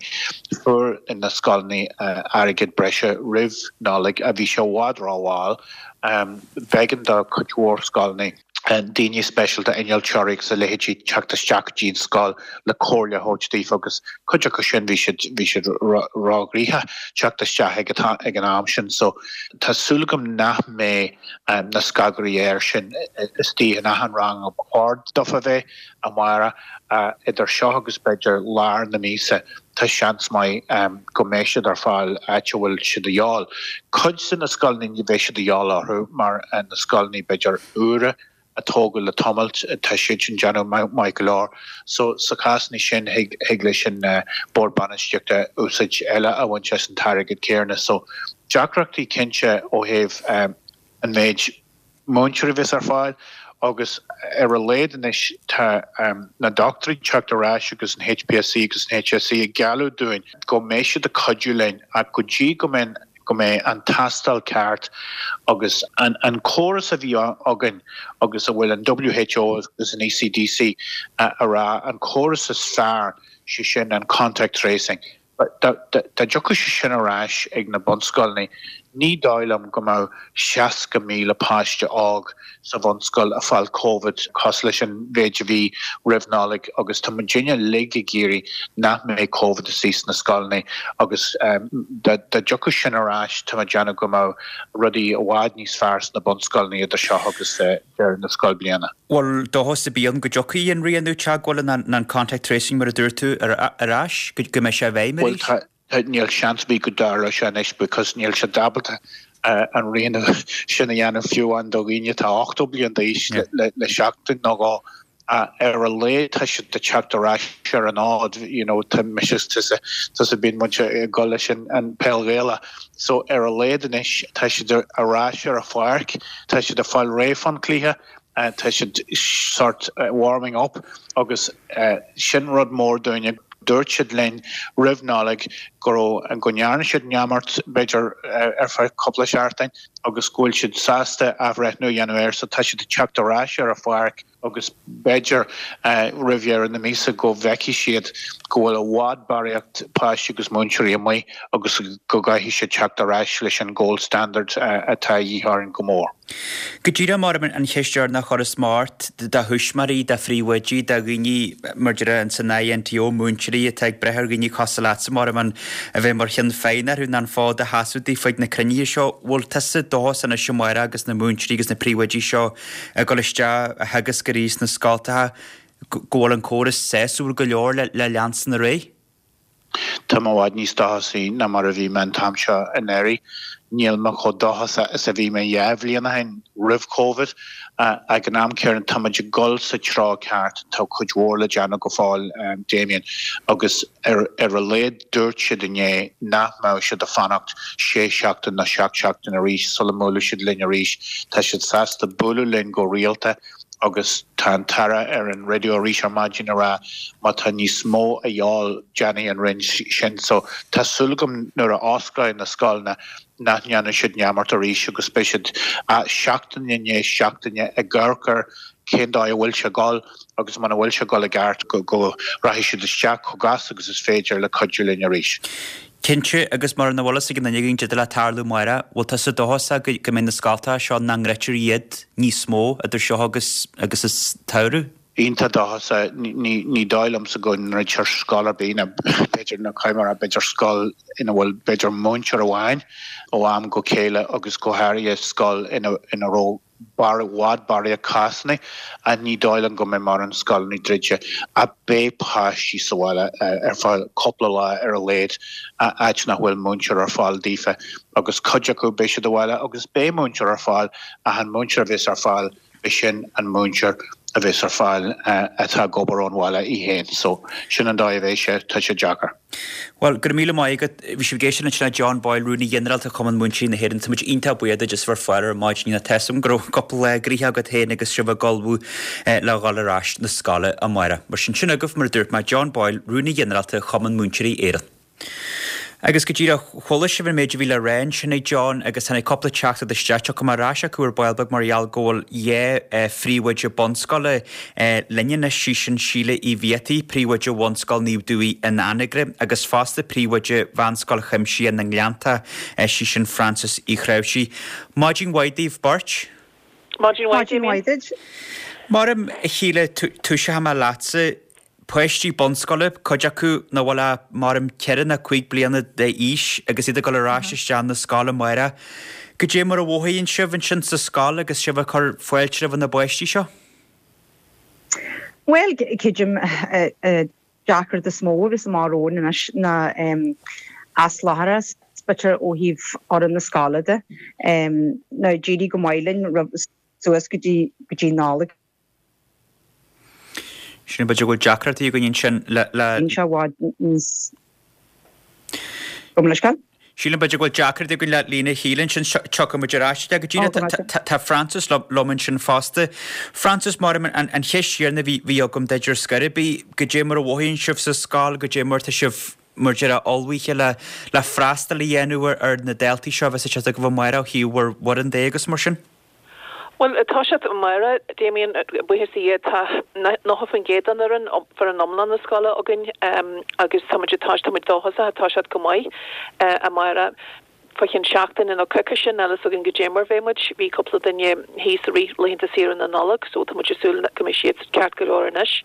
fuair na scoileanna airgead breise roimh Nollaig a bhí sé i bhfad rómhall. B'éigean do chuid mhór scoileanna daoine speisialta, innealtóirí agus a leithéidí teacht isteach go dtí an scoil le comhairle a thabhairt daofa agus cuid acu sin bhí siad bhí siad róghnoitheach teacht isteach ag ag an am sin. So tá súil agam nach mbeidh na scagairí aeir sin istigh in achan rang a ba chóir dófa bheith amárach. Idir seo agus b'fhéidir lár na míosa tá seans maith go mbeidh siad ar fáil áit a bhfuil siad de dhíobháil. Cuid de na scoileanna ní bheidh siad de dhíobháil orthu mar na scoileanna b'fhéidir úra a tógadh le tamalt tá siad sin déanamh maith go leor. So sa chásanna sin thig thig leis an Bord Bainistíochta úsáid eile a bhaint as an t-airgead céanna. So deacrachtaí cinnte ó thaobh an méid múinteoirí a bheas ar fáil agus ar a laghad anois tá na dochtúirí ag teacht ar ais agus an HPSC agus an HSE ag gealladh dúinn go mbeidh siad ag cuidiú linn ach go dtí go mbeidh go mbeidh an tástáil ceart agus an an córas a bhí againn agus a bhfuil an WHO agus an ECDC a rá an córas is fearr sé sin an contact tracing. Dá dtiocfadh sé sin ar ais ag na bunscoileanna, ní dóigh liom go mbeadh 60,000 páiste óg sa bhunscoil ag fáil Covid cosúil leis an mhéid a bhí roimh Nollaig agus tá muidinne uilig ag iarraidh nach mbeidh Covid istigh sna scoileanna agus dá dtiocfadh sin ar ais tá mé ag déanamh go mbeadh rudaí i bhfad níos fearr sna bunscoileanna idir seo agus deireadh na scoilbhliana. Bhfuil dóchas ar bith ann go dtiocfaidh an rianú teagmhála ná an contact tracing mar a dúirt tú ar ais, go mbeidh sé i bhfeidhm arís? Bhuel tá, níl seans ar bith go dtarlóidh sé anois because níl siad ábalta an rianú sin a dhéanamh fiú amháin do dhaoine atá 80 bliain d'aois le seachtain nó dhó. Ar a laghad tá siad ag teacht ar ais ar an fhód, you know, tá mise is tusa, tusa bíonn muid ag dul leis an peil Ghaelach. So ar a laghad anois tá siad ar ais ar an pháirc, tá siad ag fáil réidh fán cluiche. Tá siad sort warming up agus sin rud mór dúinne. Dúirt siad linn roimh Nollaig go raibh, go ndearna siad neamart b'fhéidir ar feadh cúpla seachtain agus go bhfuil siad sásta athbhreithniú a dhéanamh air so tá siad ag teacht ar ais ar an pháirc agus b'fhéidir roimh dheireadh na míosa go bhfeicfidh siad go bhfuil i bhfad barraíocht páistí agus múinteoirí amuigh agus go gcaithfidh siad teacht ar ais leis an gold standard atá a dhíth orainn go mór. Go díreach mar an cheist dheireanach a chuirfeas mé ort, do thuismitheoirí, do phríomhoidí, do dhaoine mar déarfá ins an INTO, múinteoirí atá ag brath ar dhaoine cosúil leatsa mar a bheith mar cheann feadhna orthu nó an fód a sheasamh daofa ag na cruinnithe seo, bhfuil tusa dóchasach anois amárach agus na múinteoirí agus na príomhoidí seo ag dul isteach a theagasc arís sna scoltacha go bhfuil an córas sásúil go leor le leanstan ar aghaidh? Tá mé i bhfad níos dóchasaí ná mar a bhí mé an t-am seo anuraidh. Níl mé chomh dóchasach is a bhí mé 2 bhliain ó shin, roimh Covid. Ag an am céanna, tá muid ag dul sa treo ceart. Tá cuid mhór le déanamh go fóill, Damien, agus ar a laghad dúirt siad inné nach mbeadh siad ag fanacht sé seachtain nó seacht seachtain arís sula mbuailfidh siad linn arís. Tá siad sásta bualadh linn go rialta. agus tá an tAire ar an raidió arís ar maidin ag rá má tá níos mó a dhíobháil déanfaidh an Roinn sin. So tá súil agam nuair a osclóidh na scoileanna nach ndéanfaidh siad neamart arís agus beidh siad seachtain i ndiaidh seachtaine ag amharc ar cén dóigh a bhfuil sé ag dul agus muna bhfuil sé ag dul i gceart go rachaidh siad isteach chomh gasta agus is féidir le cuidiú linn arís. Cinnte, agus mar nach bhfuil fhios ag aon duine againn caidé le tarlú amárach, bhfuil tusa dóchasach go go mbeidh na scoltacha seo nach ndruidtear iad níos mó idir seo agus agus an samhradh? Iontach dóchasach. Ní ní dóigh liomsa go ndruidtear scoil ar bith, nó b'fhéidir nó caithfidh mé a rá b'fhéidir scoil ina bhfuil b'fhéidir múinteoir amháin ó am go chéile agus go háirithe scoil ina ina raibh i bhfad barraíocht cásanna ach ní dóigh liom go mbeidh mórán scoileanna druidte ach beidh páistí sa bhaile ar feadh cúpla lá ar a laghad áit nach bhfuil múinteoir ar fáil daofa agus cuid acu beidh siad abhaile agus beidh múinteoir ar fáil ach an múinteoir a bheas ar fáil beidh sin an múinteoir a bheas ar fáil atá ag obair ón bhaile í féin so sin an dóigh a bheidh sé, tá sé deacair. Bhuel, go raibh míle maith agat. Bhí sibh ag éisteacht ansin le John Boyle, Rúnaí Ginearálta Chumann Múinteoirí na hÉireann. Tá muid iontach buíoch duit as bheith ar fáil ar maidin. Tá 'fhios agam go raibh cúpla lá gnoitheach agat féin agus sibh ag ullmhú le dhul ar ais na scoile amárach. Mar sin, sin agaibh, mar a dúirt mé, John Boyle, Rúnaí Ginearálta Chumann Múinteoirí Éireann. Agus go díreach, chuala sibh an méid a bhí le rá ansin ag John agus tháinig cúpla teachtaireacht isteach. Tiocfaidh mé ar ais acu ar ball beag mar gheall go bhfuil 2 phríomhoide bunscoile linn anois, sí sin Síle Uí Bhiataigh, príomhoide Bhunscoil Naomh Dubhaigh in Anagaire agus fosta príomhoide Mheánscoil Chuimsitheach na nGleannta, sí sin Frances Uí Chnáimhsí. Maidin mhaith daoibh beirt. Maidin mhaith, Damien. Maidin mhaith duit. Maram, a Shíle, toiseoidh mé leatsa. Páistí bunscoile, cuid acu nach bhfuil ach, maram, ceithre nó cúig bliana d'aois agus iad ag dul ar ais isteach na scoile amárach. Goidé mar a mhothaíonn sibh ansin sa scoil agus sibh ag cur fáilte roimh na bpáistí seo? Bhuel, creidim, deacracht is mó a bheas amach romhainn anois ná asláithreachas, b'fhéidir, ó thaobh fhoireann na scoile de. Now, d'éirigh go maith linn roimh, suas go dtí, go dtí Nollaig. Sin, b'fhéidir go bhfuil deacrachtaí againn ansin le, le. Bíonn sé i bhfad níos. Gabh mo leithscéal. Sílim b'fhéidir go bhfuil deacrachtaí againn le líne Shíle ansin, tiocfaidh muid ar ais go dtí Tá Frances liom ansin fosta. Frances, mar an cheist chéanna a bhí agam duit ar scor ar bith, goidé mar a mhothaíonn sibh sa scoil, goidé mar tá sibh mar déarfá ullmhaithe le le freastal a dhéanamh ar na daltaí seo a bheas ag teacht chugaibh amárach ó thaobh bhur bhfoireann de agus mar sin? Bhuel, tá siad amárach, Damien, buíochas le Dia, tá 90% den fhoireann, foireann iomlán na scoile againn agus tá muid ag tá muid dóchasach, tá siad go maith amárach. Fá cheann seachtaine nó coicíse, níl a fhios againn goidé mar bheidh muid. Bhí cúpla duine thíos i rith laethanta saoire na Nollag so tá muid ag súil go mbeidh siad ceart go leor anois.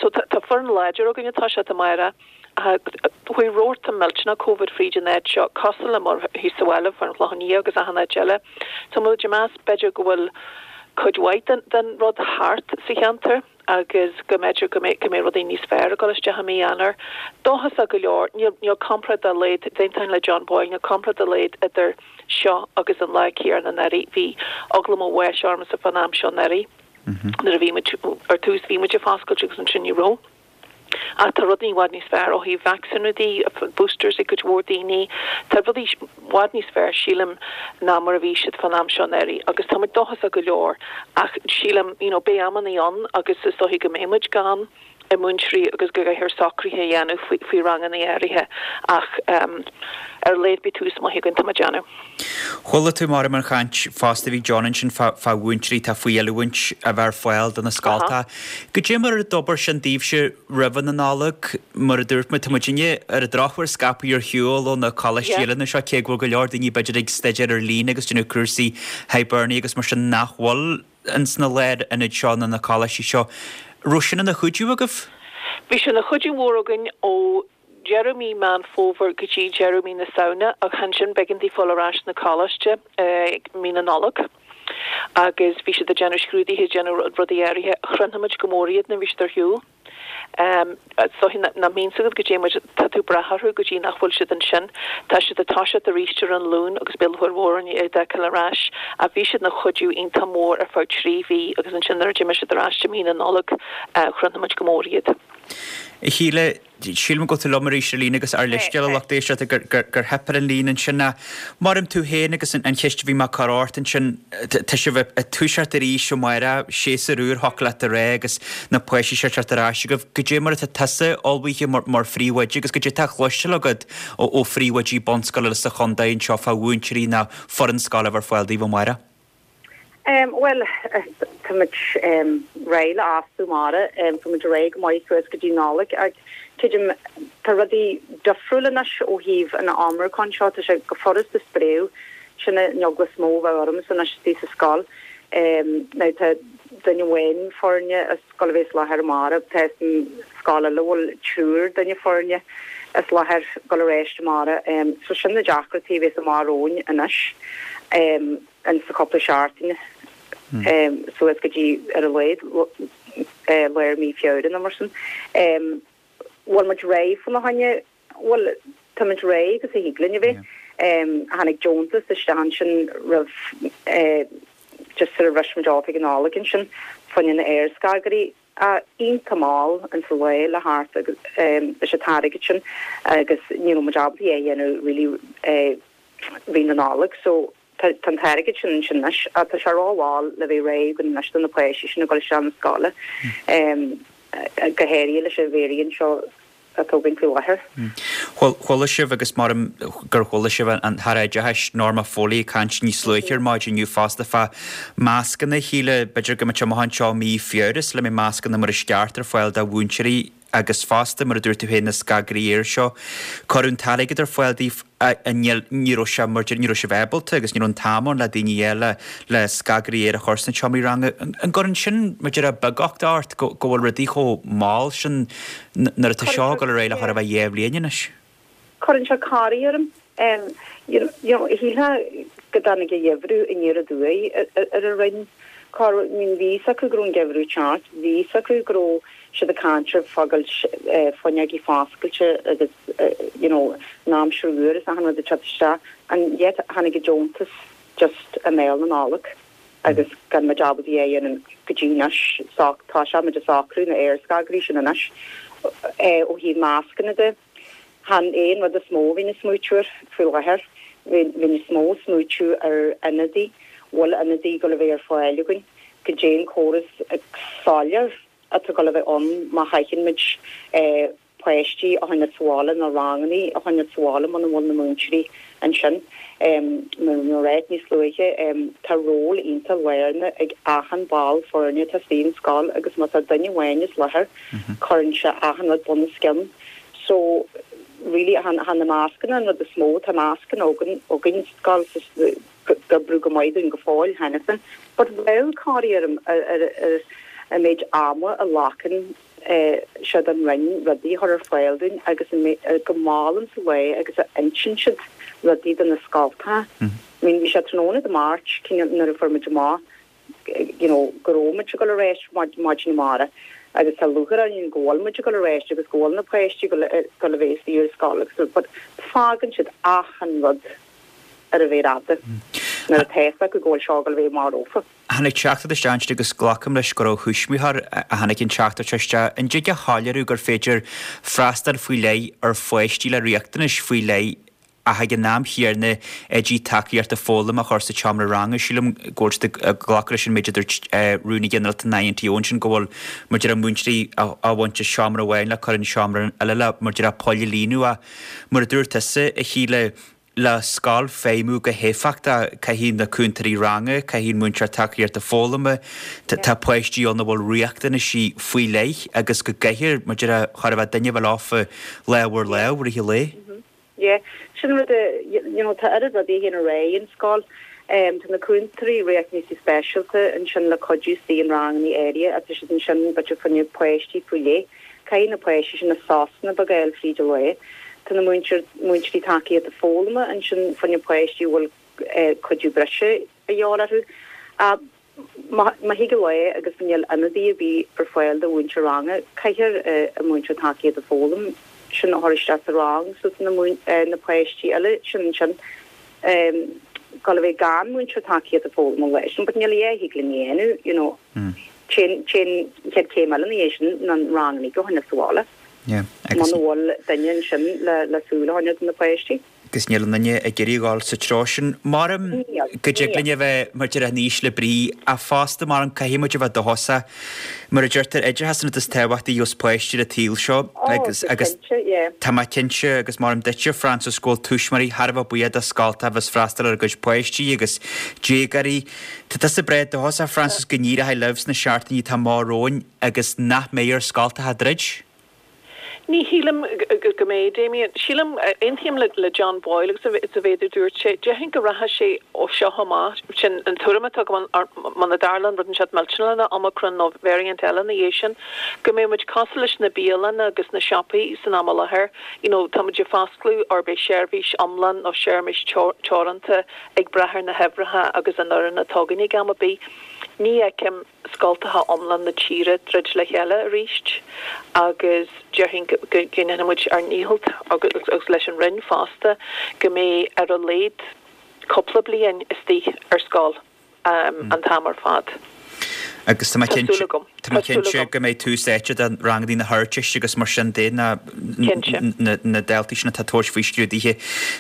So tá foireann láidir againn atá siad amárach. Chuaigh rabharta millteanach Covid fríd an áit seo, cosúil le mar thíos sa bhaile, fán Chlochán Liath agus achan áit eile. So muid ag meas b'fhéidir go bhfuil cuid mhaith den den rud thart sa cheantar agus go mb'fhéidir go mbeidh go mbeidh rudaí níos fearr ag dul isteach i mí Eanáir. Dóchasach go leor, níl níl comparáid dá laghad, d'aontóinn le John Boyle, níl comparáid dá laghad idir seo agus an lá céanna anuraidh. Bhí eagla mo bháis ormsa fán am seo anuraidh nuair a bhí muid, ar tús bhí muid ag foscailt agus ansin ní raibh. Ach tá rudaí i bhfad níos fearr ó thaobh vacsaíniú de, boosters ag cuid mhór daoine. Tá rudaí i bhfad níos fearr, sílim, ná mar a bhí siad fán am seo anuraidh agus tá muid dóchasach go leor ach sílim, you know, beidh amannaí ann agus is dóichí go mbeidh muid gan múinteoirí agus go gcaithfear socruithe a dhéanamh faoi, faoi rangannaí áirithe ach ar a laghad beidh tús maith againn, tá mé ag déanamh. Chuala tú maram an chaint fosta a bhí ag John ansin fá mhúinteoirí atá faoi oiliúint a bheith ar fáil do na scoltacha. Goidé mar a d'obair sin daoibhse roimhe na Nollag? Mar a dúirt muid, tá muidinne ar an drochuair scaipthe ar shiúl ó na coláistí eile anseo, cé go bhfuil go leor daoine b'fhéidir ag staidéar ar líne agus déanamh cúrsaí Hibernia agus mar sin nach bhfuil ins na lárionaid seo nó na coláistí seo. Raibh sin ina chuidiú agaibh? Bhí sé ina chuidiú mhór againn ó deireadh mí Meán Fómhair go dtí deireadh mí na Samhna ach ansin b'éigean daofa fáil ar ais sna coláiste ag mí na Nollag agus bhí siad ag déanamh scrúduithe, ag déanamh rudaí áirithe. Chronaigh muid go mór iad nuair a bhí siad ar shiúl. Is dóichí nach mbíonn 's agat goidé mar tá tú ag brath orthu go dtí nach bhfuil siad ansin. Tá siad ag toiseacht arís ar an Luan agus beidh lúcháir mhór orainn iad a fheiceáil ar ais. Ach bhí siad ina chuidiú iontach mór ar feadh 3 mhí agus ansin nuair a d'imigh siad ar ais i mí na Nollag chronaigh muid go mór iad. A Shíle, sílim go bhfuil tú liom arís ar líne agus ár leithscéal a lucht éisteachta gur theip ar an líne ansin. Ach maram tú féin agus an cheist a bhí mé ag cur ort ansin, tá sibh ag toiseacht arís amárach, séasúr úr thiocfadh leat a rá agus na páistí seo ag teacht ar ais agaibh. Goidé mar atá tusa ullmhaithe mar phríomhoide agus goidé atá á chloisteáil agat ó phríomhoidí bunscoile sa chontae anseo fá mhúinteoirí nó foireann scoile a bheith ar fáil daoibh amárach? Bhuel, tá muid réidh le fhostú amárach. Tá muid réidh go maith suas go dtí Nollaig ach tuigim tá rudaí difriúil anois ó thaobh an Omicron seo. Tá sé go furasta spréadh. Sin an eagla is mó a bheadh ormsa anois istigh sa scoil. Now tá duine amháin foirne ag gabháil a bheith as láthair amárach. Tá an scoil eile a bhfuil triúr duine foirne as láthair ag gabháil ar ais amárach. So sin na deacrachtaí a bheas amach romhainn anois. In sa chúpla seachtaine suas go dtí ar a laghad lár mí Feabhra nó mar sin. Bhfuil muid réidh fána choinne? Bhuel, tá muid réidh agus a thig linn a bheith. Tháinig deontas isteach ansin roimh just sar a bhris muid off ag an Nollaig ansin fá choinne na aerscagairí. Iontach mall in sa lá le thart agus leis an t-airgead sin agus ní raibh muid ábalta é a dhéanamh really rith na Nollag so tá an t-airgead sin ansin anois ach tá sé ró-mhall le bheith réidh againn anois do na páistí sin ag dul isteach na scoile go háirithe leis an variant seo atá againn faoi láthair. Chuala sibh agus maram gur chuala sibh an tAire Oideachais Norma Foley ag caint níos luaithe ar maidin inniu fosta fá mascanna a Shíle, b'fhéidir go mbeidh sé amach anseo mí Feabhra sula mbeidh mascanna mar is ceart ar fáil do mhúinteoirí agus fosta, mar a dúirt tú féin, na scagairí aeir seo. Cuireadh an t-airgead ar fáil daoibh níl, ní raibh sé mar, ní raibh sibh ábalta agus ní raibh an t-am ann le daoine eile le scagairí aeir a chur sna seomraí ranga. An gcuireann sin, mar a déarfá, beagucht ort go bhfuil rudaí chomh mall sin nuair atá seo ag dul ar aghaidh le chóir a bheith dhá bhliain anois? Cuireann sé corraí orm. You know, shílfeá go dtáinig an geimhreadh aniar aduaidh ar an Roinn. Cá, I mean, bhí fhios acu go raibh an geimhreadh ag teacht, bhí fhios acu go raibh siad ag caint ar fágáil fuinneogaí foscailte agus you know an aimsir fhuar is achan rud ag teacht isteach and yet tháinig an deontas just i mbéal na Nollag agus gan muid ábalta é a dhéanamh go dtí anois. Tá sé muid ag socrú na aerscagairí sin anois ó thaobh mascanna de. Chan é an rud is mó a bhínn ag smaoitiú air faoi láthair. Bhínn is mó ag smaoitiú ar ionadaí, bhfuil ionadaí ag dul a bheith ar fáil againn, goidé an córas soiléir atá ag dul a bheith ann má chaitheann muid páistí a choinneáil sa bhaile nó rangannaí a choinneáil sa bhaile muna bhfuil na múinteoirí ansin. Mar a ráit níos luaithe, tá ról iontach lárnach ag achan ball foirne atá istigh in scoil agus má tá duine amháin as láthair, cuireann sé achan rud bunoscionn. So, really, chan na mascanna an rud is mó, tá mascanna againn againn sa scoil ag oibriú go maith dúinn go fóill cheana féin. But bheadh corraí orm ar ar an méid ama a ghlacann sé don Roinn rudaí a chur ar fáil dúinn agus go mall in sa lá agus a insíonn siad rudaí do na scoltacha. I mean, bhí sé tráthnóna Dé Máirt, cineál nuair a fuair muid amach you know, go raibh muid ag dul ar ais maidin amárach agus tá lúcháir orainn go bhfuil muid ag dul ar ais agus go bhfuil na páistí ag dul a bheith istigh ar scoil agus but fágann siad achan rud ar an mhéar fhada. Nuair atá fhios acu go bhfuil seo ag dul a bheith amach rompu. Tháinig teachtaireacht isteach ansin agus glacaim leis gur ó thuismitheoir a tháinig an teachtaireacht seo isteach. An dtig a shoiléiriú gur féidir freastal faoi leith ar pháistí le riachtanais faoi leith ach ag an am chéanna oidí tacaíochta foghlama a chur sa tseomra ranga? Sílim go bhfuil siad ag glacadh leis an méid a dúirt Rúnaí Ginearálta an INTO ansin go bhfuil mar a déarfá múinteoirí á bhaint as seomra amháin le cur in seomra eile le mar a déarfá poill a líonadh ach mar a dúirt tusa, a Shíle, Le scoil feidhmiú go héifeachtach, caithfidh na cúntóirí ranga, caithfidh an múinteoir tacaíochta foghlama, tá páistí ann a bhfuil riachtanaisí faoi leith agus go gcaithfear, mar a déarfá, chóir a bheith duine a bheith leofa lámh ar lámh i rith an lae. Yeah, sin rud a, you know, tá oiread rudaí a théann ar aghaidh in scoil. Tá na cúntóirí riachtanaisí speisialta ansin le cuidiú istigh in ranganna áirithe ach tá siad ansin b'fhéidir fá choinne páistí faoi leith. Caithfidh na páistí sin na sosanna beaga a fháil fríd an lá. Tá na múinteoirí tacaíochta foghlama ansin fá choinne páistí a bhfuil cuidiú breise a dhíobháil orthu. Ach má thig an lá agus níl ionadaí ar bith ar fáil do mhúinteoir ranga, caithfear an múinteoir tacaíochta foghlama sin a chur isteach sa rang so tá na páistí eile sin ansin ag dul a bheith gan múinteoir tacaíochta foghlama an lá sin. But níl a dhath a thig linn a dhéanamh, you know. Téann an chéad chéim eile ina dhiaidh sin ná an rang uilig a choinneáil sa bhaile. Muna bhfuil duine ansin le súil a choinneáil do na páistí. Agus níl aon duine ag iarraidh a dhul sa treo sin. Maram go dtig linn a bheith mar a déarfá in ísle brí ach fosta maram caithfidh muid a bheith dóchasach. Mar a deirtear, oideachas an rud is tábhachtaí a gheobhas páistí ar an tsaol seo agus agus tá mé cinnte agus maram duitse Frances go bhfuil tuismitheoirí thar a bheith buíoch do scoltacha a bheas freastal ar a gcuid páistí agus déagóirí. Tá tusa breá dóchasach, Frances, go n-éireoidh libh sna seachtainí atá amach romhainn agus nach mbeidh ar scoltacha druid? Ní shílim go mbeidh, Damien. Sílim, aontaím le John Boyle agus sa mhéid a dúirt sé. Déarfainn go rachaidh sé ó seo amach, sin an tuairim atá agam, muna dtarlaíonn rud inteacht millteanach le Omicron nó variant eile ina dhiaidh sin, go mbeidh muid cosúil leis na bialanna agus na siopaí san am i láthair. You know, tá muid ag foscladh or beidh seirbhís iomlán nó seirbhís teoranta ag brath ar na huimhreacha agus an fhoireann atá againn ag am ar bith. Ní fheicim scoltacha iomlán na tíre druid le chéile arís agus déarfainn go ndéanfaidh muid ár ndícheall agus leis an Roinn fosta go mbeidh ar a laghad cúpla bliain istigh ar scoil. an t-am ar fad. Agus tá mé cinnte, tá mé cinnte go mbeidh tús áite do ranganna na hArdteiste agus mar sin de, na na daltaí sin atá ag tabhairt faoi scrúduithe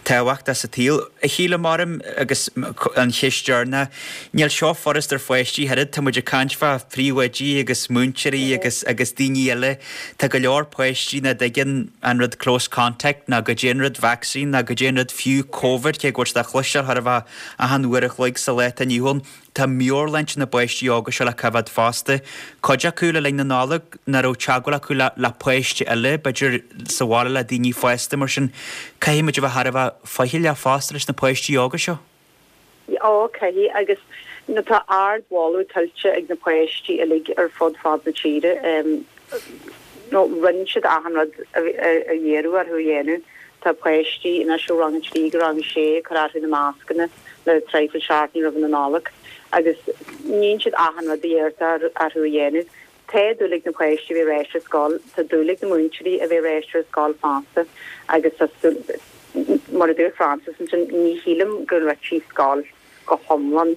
tábhachtacha sa tsaol. A Shíle, maram agus an cheist deireanach, níl seo furast ar pháistí ach oiread, tá muid ag caint fá phríomhoidí agus múinteoirí agus agus daoine eile. Tá go leor páistí nach dtuigeann an rud close contact ná goidé an rud vaccine ná goidé an rud fiú Covid, cé go bhfuil siad á chloisteáil chóir a bheith Achan uair a chloig sa lá atá inniu ann, tá meabhairshláinte na bpáistí óga seo le coimhéad fosta. Cuid acu le linn na Nollag, nach raibh teagmháil acu le páiste eile, b'fhéidir sa bhaile le daoine fásta, mar sin caithfidh muid a bheith thar a bheith faichilleach fosta leis na páistí óga seo. Ó, caithfidh, agus tá ardmholadh tuillte ag na páistí uilig ar fud fad na tíre. Nó rinne siad achan rud a iarradh orthu a dhéanamh. Tá páistí anois ó rang 3 go rang 6 ag cur orthu na mascanna le traidhfil seachtainí roimh na Nollag agus níonn siad achan rud a iarrtar orthu a dhéanamh. Tá dúil ag na páistí a bheith ar ais ar scoil, tá dúil ag na múinteoirí a bheith ar ais ar scoil fosta agus tá súil, mar a dúirt Frances ansin, ní shílim go ndruidfí scoil go hiomlán.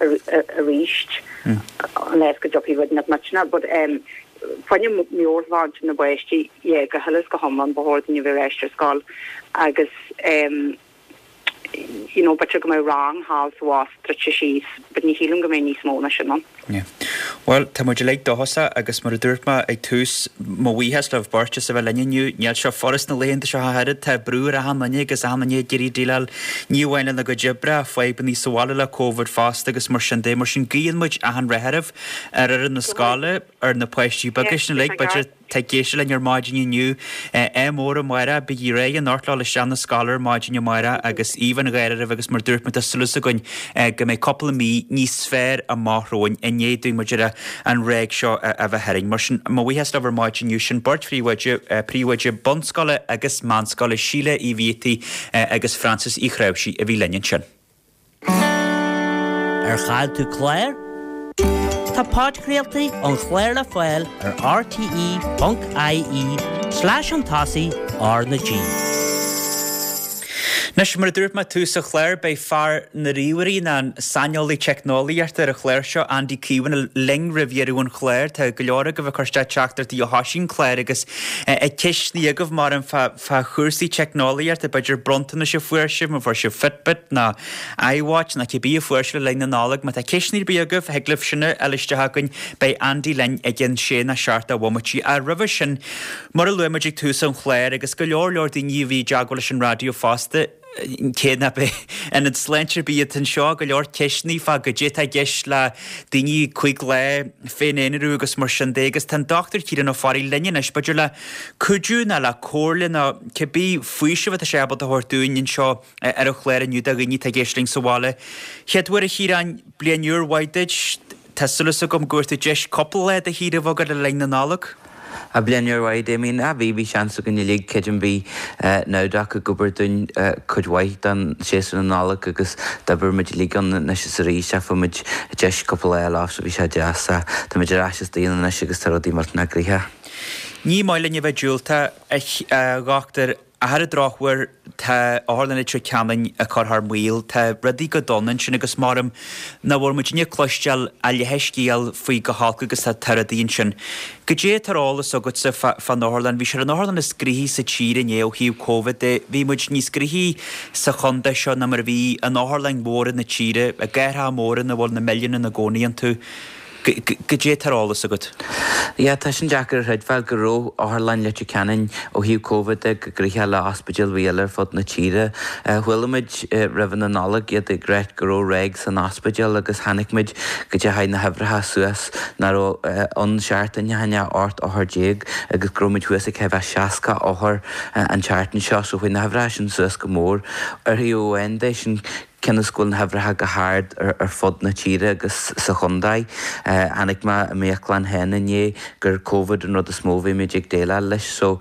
arís unless go dtiocfaidh rud nach millteanach but fá choinne meabhairshláinte na bpáistí yeah go huile is go hiomlán ba chóir dúinn a bheith ar ais ar scoil agus you know b'fhéidir go mbeadh rang thall is abhus druidte síos but ní shílim go mbeidh níos mó ná sin ann. Yeah. Bhuel, tá muid uilig dóchasach agus mar a dúirt mé ag tús, mo bhuíochas libh beirt as a bheith linn inniu. Níl seo furast na laethanta seo ach oiread, tá brú ar achan duine agus achan duine ag iarraidh déileáil ní amháin lena gcuid oibre ach fadhbanna sa bhaile le Covid fosta agus mar sin de. Mar sin guíonn muid achan rath oraibh, ar fhoireann na scoile, ar na páistí beaga sin uilig, b'fhéidir, atá ag éisteacht linn ar maidin inniu. Ádh mór amárach, bígí réidh anocht le dhul isteach na scoile ar maidin amárach agus aoibh an gháire oraibh agus mar dúirt mé tá súil againn go mbeidh cúpla mí níos fearr amach romhainn i ndiaidh dúinn mar a déarfá an ráig seo a bheith tharainn. Mar sin, mo bhuíochas libh ar maidin inniu. Sin beirt phríomhoide, príomhoide bunscoile agus meánscoile, Síle Uí Bhiataigh agus Frances Uí Chnáimhsí a bhí linn ansin. Ar chaill tú clár? Tá podchraoltaí an chláir le fáil ar rte.ie slash chun tosaigh R na G. Anois, mar a dúirt mé tús an chláir, beidh fear na ríomhairí, nó an saineolaí teicneolaíochta ar an chlár seo, Andy Keown, linn roimh dheireadh an chláir. Tá go leor agaibh ag cur isteach teachtaireachtaí ó thoisigh an clár agus ceisteanna agaibh mar fá fá chúrsaí teicneolaíochta, b'fhéidir bronntanais a fuair sibh, má fuair sibh Fitbit nó iWatch nó cibé a fuair sibh le linn na Nollag. Má tá ceisteanna ar bith agaibh, thig libh sin a fháil isteach chugainn. Beidh Andy linn i gcionn sé nó seacht de bhomaití. Ach roimhe sin, Mar a luaigh muid ag tús an chláir, agus go leor leor daoine a bhí i dteagmháil leis an raidió fosta, cé nach b'é ionad sláinte ar bith atá anseo, go leor ceisteanna fá goidé atá i gceist le daoine 5 lá féin-aonarú agus mar sin de agus tá an Dr Ciarán Ó Fearraigh linn anois, b'fhéidir le cuidiú nó le comhairle nó cibé faoiseamh atá sé ábalta a thabhairt dúinn anseo ar an chlár inniu do dhaoine atá ag éisteacht linn sa bhaile. Chéad uair a Chiaráin, bliain úr mhaith duit. Tá súil agam go bhfuair tú deis cúpla lá de shaoire a bheith agat le linn na Nollag. Ah bliain úr mhaith, Damien. Ah bhí, bhí seans againn uilig, creidim bhí Nowdoc ag obair dúinn cuid mhaith den séasúr na Nollag agus d'oibir muid uilig ann anois is arís ach fuair muid deis cúpla lá a fháil off so bhí sé deas. Tá muid ar ais istigh anois agus tá rudaí millteanach gnoitheach. Ní maith linn a bheith diúltach, a dhochtúir, Ach ar an drochuair, tá Otharlann Leitir Ceanainn ag cur thar maoil. Tá rudaí go dona ansin agus maram nach bhfuil muidinne ag cloisteáil a leathscéal faoi chomh holc agus atá rudaí ansin. Goidé atá ar eolas agatsa fán otharlann? Bhí sé ar an otharlann is gnoithí sa tír inné ó thaobh Covid de. Bhí muid níos gnoithí sa chontae seo ná mar a bhí in otharlann mhóra na tíre, i gcathracha móra ina bhfuil na milliúin ina gcónaí iontu. Goidé atá ar eolas agat? Yeah, tá sin deacair a chreidbheáil go raibh Otharlann Leitir Ceanainn ó thaobh Covid de chomh gnoitheach le ospidéil ar bith eile ar fud na tíre. Chuala muid roimhe na Nollag iad ag ráit go raibh ráig san ospidéal agus chonaic muid go dteachaigh na huimhreacha suas nach raibh ann seachtain ó shin ach 18 othar agus go raibh muid thuas ag chóir a bheith 60 othar an tseachtain seo so chuaigh na huimhreacha sin suas go mór. Ar thaobh amháin de sin Cionn is go bhfuil na huimhreacha go hard ar fud na tíre agus sa chontae. Chonaic mé i m'íoclann féin inné gur Covid an rud is mó a bhí muid ag déileáil leis so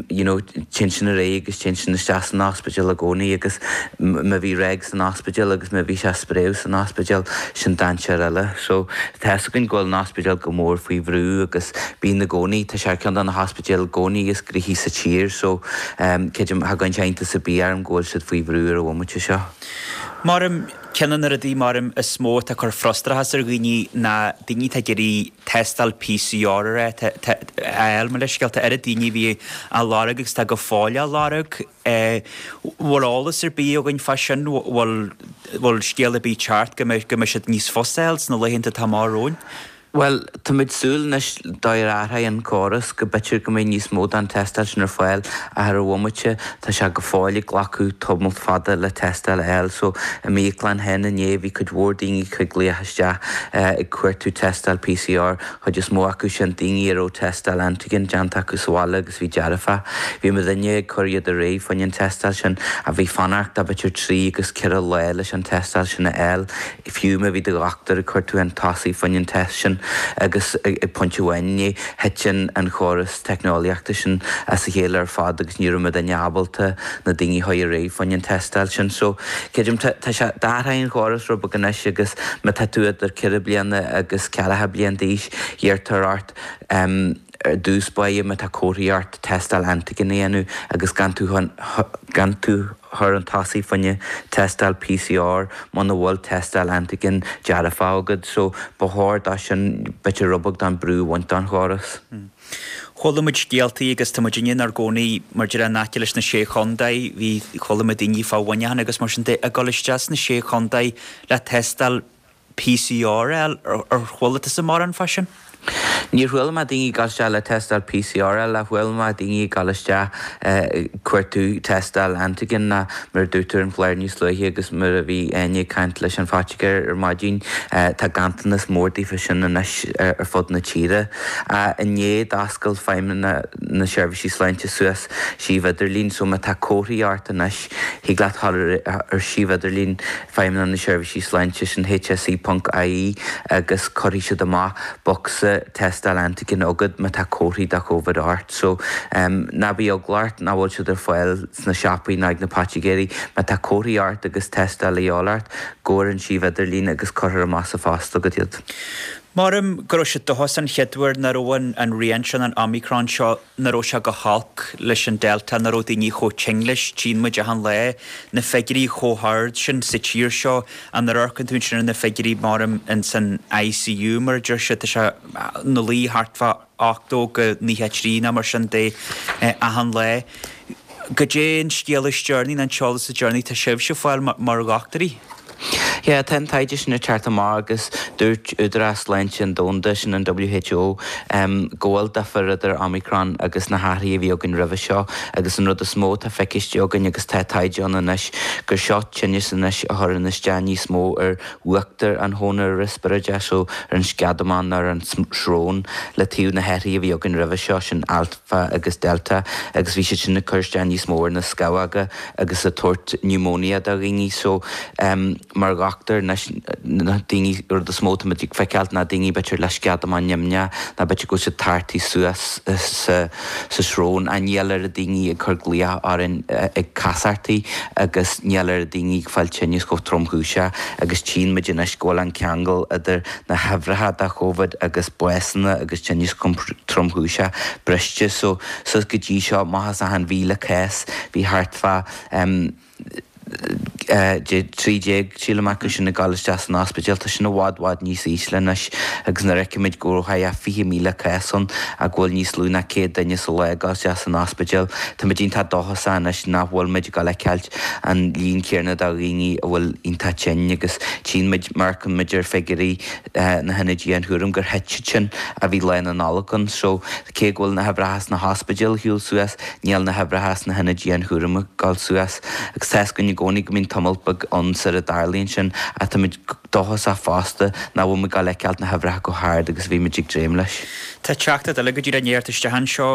you know téann sin ar aghaidh agus téann sin isteach san ospidéal i gcónaí agus má bhí ráig san ospidéal agus má bhí sé ag spréadh san ospidéal sin dainséar eile. So tá fhios againn go bhfuil an ospidéal go mór faoi bhrú agus bíonn i gcónaí, tá sé ar ceann de na hospidéil i gcónaí is gnoithí sa tír so Creidim, cha gcuireann sé iontas ar bith orm go bhfuil siad faoi bhrú ar an bhomaite seo. Maram, ceann de na rudaí, maram, is mó atá ag cur frustrachas ar dhaoine ná daoine atá ag iarraidh tástáil PCR a fháil, mo leithscéal, tá oiread daoine a bhí á lorg agus atá go fóill á lorg. Bhfuil eolas ar bith againn fá sin? Bhfuil bhfuil scéal ar bith ag teacht go mbeidh go mbeidh siad níos fusa a fháil sna laethanta atá amach romhainn? Bhuel, táimid súil anois dá réir athraigh an córas go b'fhéidir go mbeidh níos mó den tástáil sin ar fáil ach ar an bhomaite tá sé go fóill ag glacadh tamall fada le tástáil a fháil. So, i m'íoclann féin inné bhí cuid mhór daoine ag glaoch isteach ag cuartú tástáil PCR, chuid is mó acu sin daoine a raibh tástáil antigen déanta acu sa bhaile agus bhí dearfach. Bhí muidinne ag cur iad ar aghaidh fá choinne an tástáil sin ach bhí fanacht de b'fhéidir trí agus ceithre lá leis an tástáil sin a fháil. Fiú má bhí do dhochtúir ag cur tú chun tosaigh fá choinne an test sin agus ag pointe amháin inné thit an chóras teicneolaíochta sin as a chéile ar fad agus ní raibh muidinne ábalta na daoine a chur ar aghaidh fá choinne an tástáil sin. So, creidim, tá sé, d'athraigh an chóras rud beag anois agus má tá tú idir ceithre bliana agus ceathracha bliain d'aois, iarrtar ort ar dtús báire má tá comharthaí ort tástáil antigen a dhéanamh agus gan tú gan tú chur chun tosaigh fá choinne tástáil PCR muna bhfuil tástáil antigen dearfach agat so ba chóir dó sin b'fhéidir rud beag den brú a bhaint den chóras. Chuala muid scéaltaí agus tá muid inár gcónaí mar a déarfá in aice leis na Sé Chontae, bhí, chuala muid daoine fá Mhuineachán agus mar sin de ag dul isteach sna Sé Chontae le tástáil PCR a fháil, ar chuala tusa mórán fá sin? Níor chuala mé daoine ag dul isteach le tástáil PCR a fháil ach chuala mé daoine ag dul isteach ag cuartú tástáil antigen ná mar a dúirt tú ar an chlár níos luaithe agus mar a bhí Áine ag caint leis an phoitigéir ar maidin, tá ganntanas mór daofa sin anois ar fud na tíre. Inné d'oscail Feidhmeannacht na Seirbhísí Sláinte suas suíomh idirlín so má tá comharthaí ort anois thig leat dhul ar suíomh idirlín Feidhmeannacht na Seirbhísí Sláinte, sin hse ponc ie, agus cuirfidh siad amach bocsa tástáil antigen agat má tá comharthaí de Covid ort. So, ná bí eagla ort nach bhfuil siad ar fáil sna siopaí ná ag na poitigéirí. Má tá comharthaí ort agus tástáil a dhíobháil ort, gabh ar an suíomh idirlín agus cuirfear amach sa phost agat iad. Maram go raibh sé dóchasach an chéad uair nach raibh an an rian sin, an Omicron seo, nach raibh sé go holc leis an Delta, nach raibh daoine chomh tinn leis. Tchíonn muid achan lá na figiúirí chomh hard sin sa tír seo. Nuair a amharcann tú ansin ar na figiúirí maram ins an ICU mar a deir siad, tá sé ina luí thart fá 80-93 nó mar sin de achan lá. Goidé an scéal is deireanaí nó an t-eolas is deireanaí atá sibhse ag fáil mar dhochtúirí? Yeah, tá an taighde sin ag teacht amach agus dúirt Údarás Sláinte an Domhanda, sin an WHO, go bhfuil difear idir Omicron agus na hathruithe a bhí againn roimhe seo agus an rud is mó atá feiciste againn agus tá taighde ann anois gur seo tinneas anois a chuireann isteach níos mó ar uachtar an chónair riospráide, so ar an sceadamán nó ar an srón le taobh na hathruithe a bhí againn roimhe seo, sin Alpha agus Delta agus bhí siad sin ag cur isteach níos mó ar na scamhóga. agus ag tabhairt pneumonia do dhaoine so mar dhochtúir anois na daoine rud is mó táimid ag feiceáilt ná daoine b'fhéidir le sceadamán nimhneach nó b'fhéidir go bhfuil siad tartaithe suas sa sa srón ach níl oiread daoine ag cur glaoch orainn ag casachtaí agus níl oiread daoine ag fáil tinneas chomh tromchúiseach agus tchíonn muid anois go bhfuil an ceangal idir na huimhreacha de Covid agus básanna agus tinneas tromchúiseach briste so Suas go dtí seo, amach as achan 1,000 cás, bhí thart fá 13, sílim, acu sin ag dul isteach san ospidéal. Tá sin i bhfad, bhfad níos ísle anois agus nuair a fheicimid go raibh thart fá 20,000 cás ann ach go bhfuil níos lú ná 100 duine sa lá ag dul isteach san ospidéal, táimid iontach dóchasach anois nach bhfuil muid ag dul a fheiceáilt an líon céanna de dhaoine a bhfuil iontach tinn agus tchíonn muid, má amharcann muid ar figiúirí na hionaid dianchúraim gur thit siad sin ó bhí Lá na Nollag ann. So, cé go bhfuil na huimhreacha sna hospidéil ag siúl suas, níl na huimhreacha sna hionaid dianchúraim ag dul suas. Agus tá fhios againn i gcónaí go mbíonn tamall beag ann sar a dtarlaíonn sin, ach táimid dóchasach fosta nach bhfuil muid ag dul a fheiceáilt na huimhreacha chomh hard agus a bhí muid ag dréim leis. Tá teachtaireacht eile go díreach i ndiaidh a theacht isteach anseo,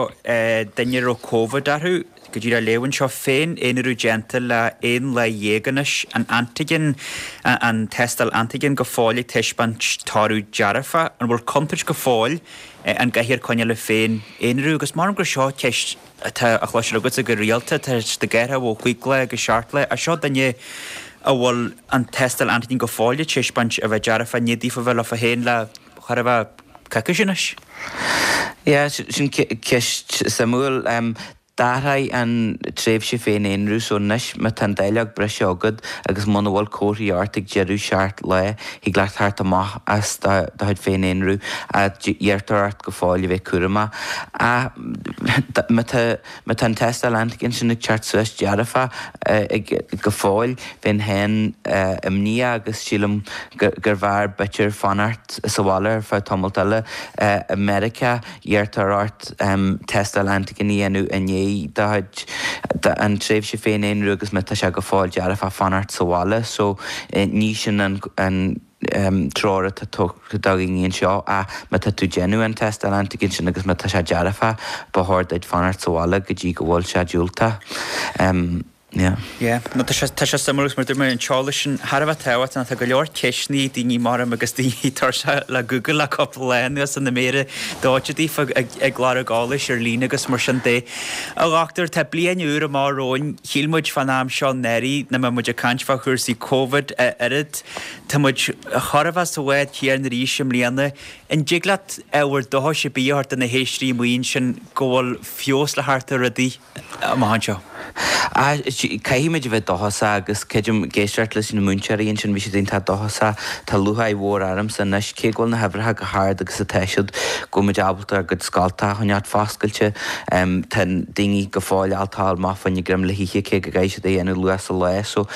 duine a raibh Covid orthu. Go díreach á léamh anseo, féin-aonarú déanta le 11 lá anois, an antigen, an tástáil antigen go fóill ag taispeáint toradh dearfach. An bhfuil contúirt go fóill an gcaithfear coinneáil le féin-aonarú? Agus maram gur seo ceist atá á chloisteáil agatsa go rialta, tá siad ag athrú ó chúig lá go seacht lá, ach seo duine a bhfuil an tástáil antigen go fóill ag taispeáint a bheith dearfach i ndiaidh daofa bheith leofa féin le chóir a bheith coicís anois. Yeah, sin ceist suimiúil. D'athraigh an tréimhse féin-aonrú so anois má tá an dáileog breise agat agus muna bhfuil comharthaí ort ag deireadh 7 lá, thig leat theacht amach as do chuid féin-aonrú ach iarrtar ort go fóill a bheith cúramach. Ach má tá má tá an tástáil antigen sin ag teacht suas dearfach ag go fóill, bheinn féin imníoch agus sílim gurbh fhearr b'fhéidir fanacht sa bhaile ar feadh tamalt eile. I Meiriceá, iarrtar ort tástáil antigen a dhéanamh i ndiaidh do chuid an tréimhse féin-aonrú agus má tá sé go fóill dearfach fanacht sa bhaile. So ní sin an treoir atá tugtha do dhaoine anseo ach má tá tú ag déanamh an tástáil antigen sin agus má tá sé dearfach ba chóir duit fanacht sa bhaile go dtí go bhfuil sé diúltach. Yeah. Yeah. No, tá sé, tá sé suimiúil agus mar dúirt mé, an t-eolas sin thar a bheith tábhachtach. Tá go leor ceisteanna ag daoine maram agus daoine tuirseach le Google le cúpla lá anuas na méara dóite daofa ag, ag lorg eolais ar líne agus mar sin de. A dhochtúir, tá bliain úr amach romhainn. Shíl muid fán am seo anuraidh nach mbeadh muid ag caint fá chúrsaí Covid a oiread. Tá muid chóir a bheith sa bhád céanna arís i mbliana. An dtig leat ábhar dóchais ar bith a thabhairt do na héisteoirí amuigh ansin go bhfuil feabhas le theacht ar rudaí? amach anseo. Caithfimid a bheith dóchasach agus creidim ag éisteacht leis na múinteoirí ansin, bhí siad iontach dóchasach. Tá lúcháir mhór ormsa anois, cé go bhfuil na huimhreacha chomh hard agus atá siad, go bhfuil muid ábalta ár gcuid scoltacha a choinneáilt foscailte. Tá daoine go fóill ábalta dul amach fá choinne greim le hithe cé go gcaithfidh siad é a dhéanamh luath sa lá. So,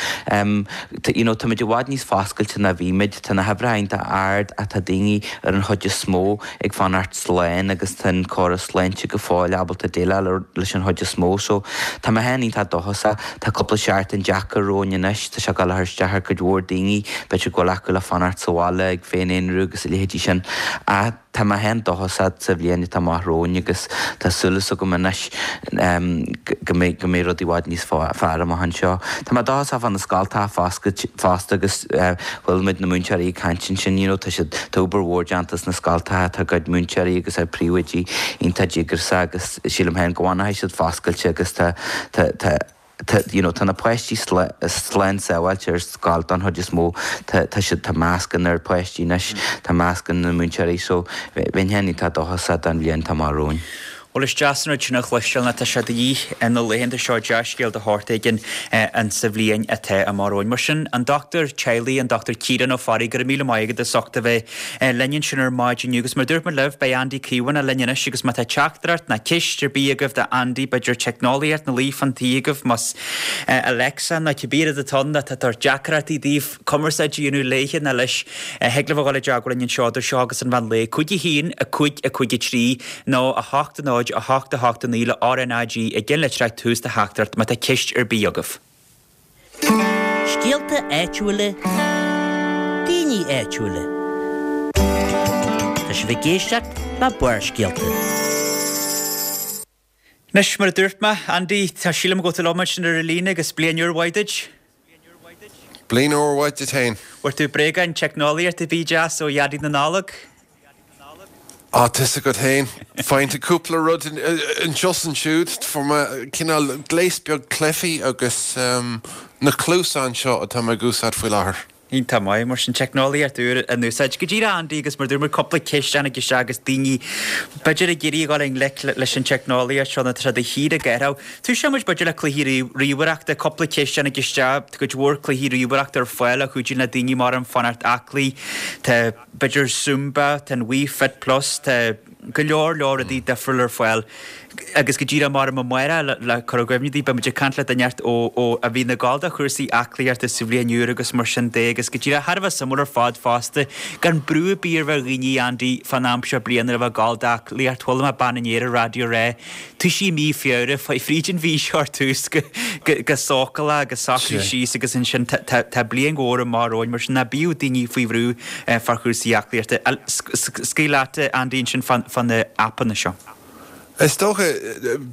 you know, táimid i bhfad níos foscailte ná bhí muid. Tá na huimhreacha iontach ard ach tá daoine ar an chuid is mó ag fanacht slán agus tá an córas sláinte go fóill ábalta déileáil leis an chuid is mó so tá mé féin iontach dóchasach. Tá cúpla seachtain deacair romhainn anois, tá sé ag dul a chur isteach ar cuid mhór daoine, b'fhéidir go bhfuil acu le fanacht sa bhaile ag féin-aonrú agus a leithéidí sin ach tá mé féin dóchasach sa bhliain atá amach romhainn agus tá súil agam anois go mbeidh go mbeidh rudaí i bhfad níos fearr amach anseo. Tá mé dóchasach fá na scoltacha fosta agus Chuala muid na múinteoirí ag caint ansin, you know, tá siad, tá obair mhór déanta sna scoltacha, tá a gcuid múinteoirí agus ár bpríomhoidí iontach díograiseach agus sílim féin go bhfanfaidh siad foscailte agus tá, tá, tá. Tá, you know, tá na páistí slán sábháilte ar scoil don chuid is mó. Tá, tá siad, tá mascanna ar páistí anois, tá mascanna na múinteoirí so bheinn féin iontach dóchasach don bhliain atá amach romhainn. Bhuel is deas an rud sin a chloisteáil nó tá sé de dhíth na laethanta seo dea-scéal de shórt éigin insa bhliain atá amach romhainn. Mar sin, an dochtúir teaghlaigh, an Dr Ciarán Ó Fearraigh, go raibh míle maith agat as ucht a bheith linn ansin ar maidin inniu agus mar a dúirt muid libh, beidh Andy Caomhánach linn anois agus má tá teachtaireacht ná ceist ar bith agaibh do Andy, b'fhéidir teicneolaíocht ina luí fán tí agaibh, más Alexa nó cibé rud atá ann atá ag tabhairt deacrachtaí daoibh cumarsáid a dhéanamh léithe ná leis, thig libh a dhul i dteagmháil linn anseo idir seo agus an mheán lae, 5 1 5 5 3 nó 8 0 8 8 9 le RnaG i gceannlitreach tús do theachtaireacht má tá ceist ar bith agaibh. Scéalta áitiúla, daoine áitiúla. Tá sibh ag éisteacht le Barrscéalta. Anois, mar a dúirt mé, Andy, tá sílim go bhfuil tú liom ansin ar an líne agus bliain úr mhaith duit. Bliain úr mhaith duit féin. Bhfuair tú bréagáin teicneolaíochta ar bith deas ó Dhaidí na Nollag? Á, tá's agat féin. Faigheann tú cúpla rud anseo is ansiúd. Fuair mé cineál gléas beag cluichí agus na cluasáin seo atá mé ag úsáid faoi láthair. Iontach maith, mar sin, teicneolaíocht úr in úsáid. Go díreach, Andy, agus mar dúirt muid, cúpla ceist a tháinig isteach agus daoine, b'fhéidir, ag iarraidh a dhul i ngleic leis an teicneolaíocht seo nó tá sé de shíor ag athrú. Tosóidh muid, b'fhéidir, le cluichí ríomhaireachta, cúpla ceist a tháinig isteach, tá cuid mhór cluichí ríomhaireachta ar fáil a chuidíonn le daoine mar an fanacht aclaí. Tá. b'fhéidir Zumba, tá an Wii Fit Plus, tá go leor leor rudaí difriúil ar fáil agus go díreach mar amárach le cur i gcuimhne daoibh, beidh muid ag caint le duine inteacht ó ó a bhíonn ag gabháil do chúrsaí aclaíochta sa bhliain úr agus mar sin de agus go díreach thar a bheith suimiúil ar fad fosta gan brú ar bith ar bheith ar dhaoine Andy fán am seo bliana a bheith ag gabháil d'aclaíocht, chuala mé bean inné ar an raidió ag rá Toisigh i mí Feabhra, faigh fríd an mhí seo ar tús go sócúlach agus socraigh síos agus ansin tá bliain mhór amach romhainn mar sin ná bíodh daoine faoi bhrú fá chúrsaí aclaíochta. Scaoil leat, Andy, ansin fá na aipeanna seo. Is dócha,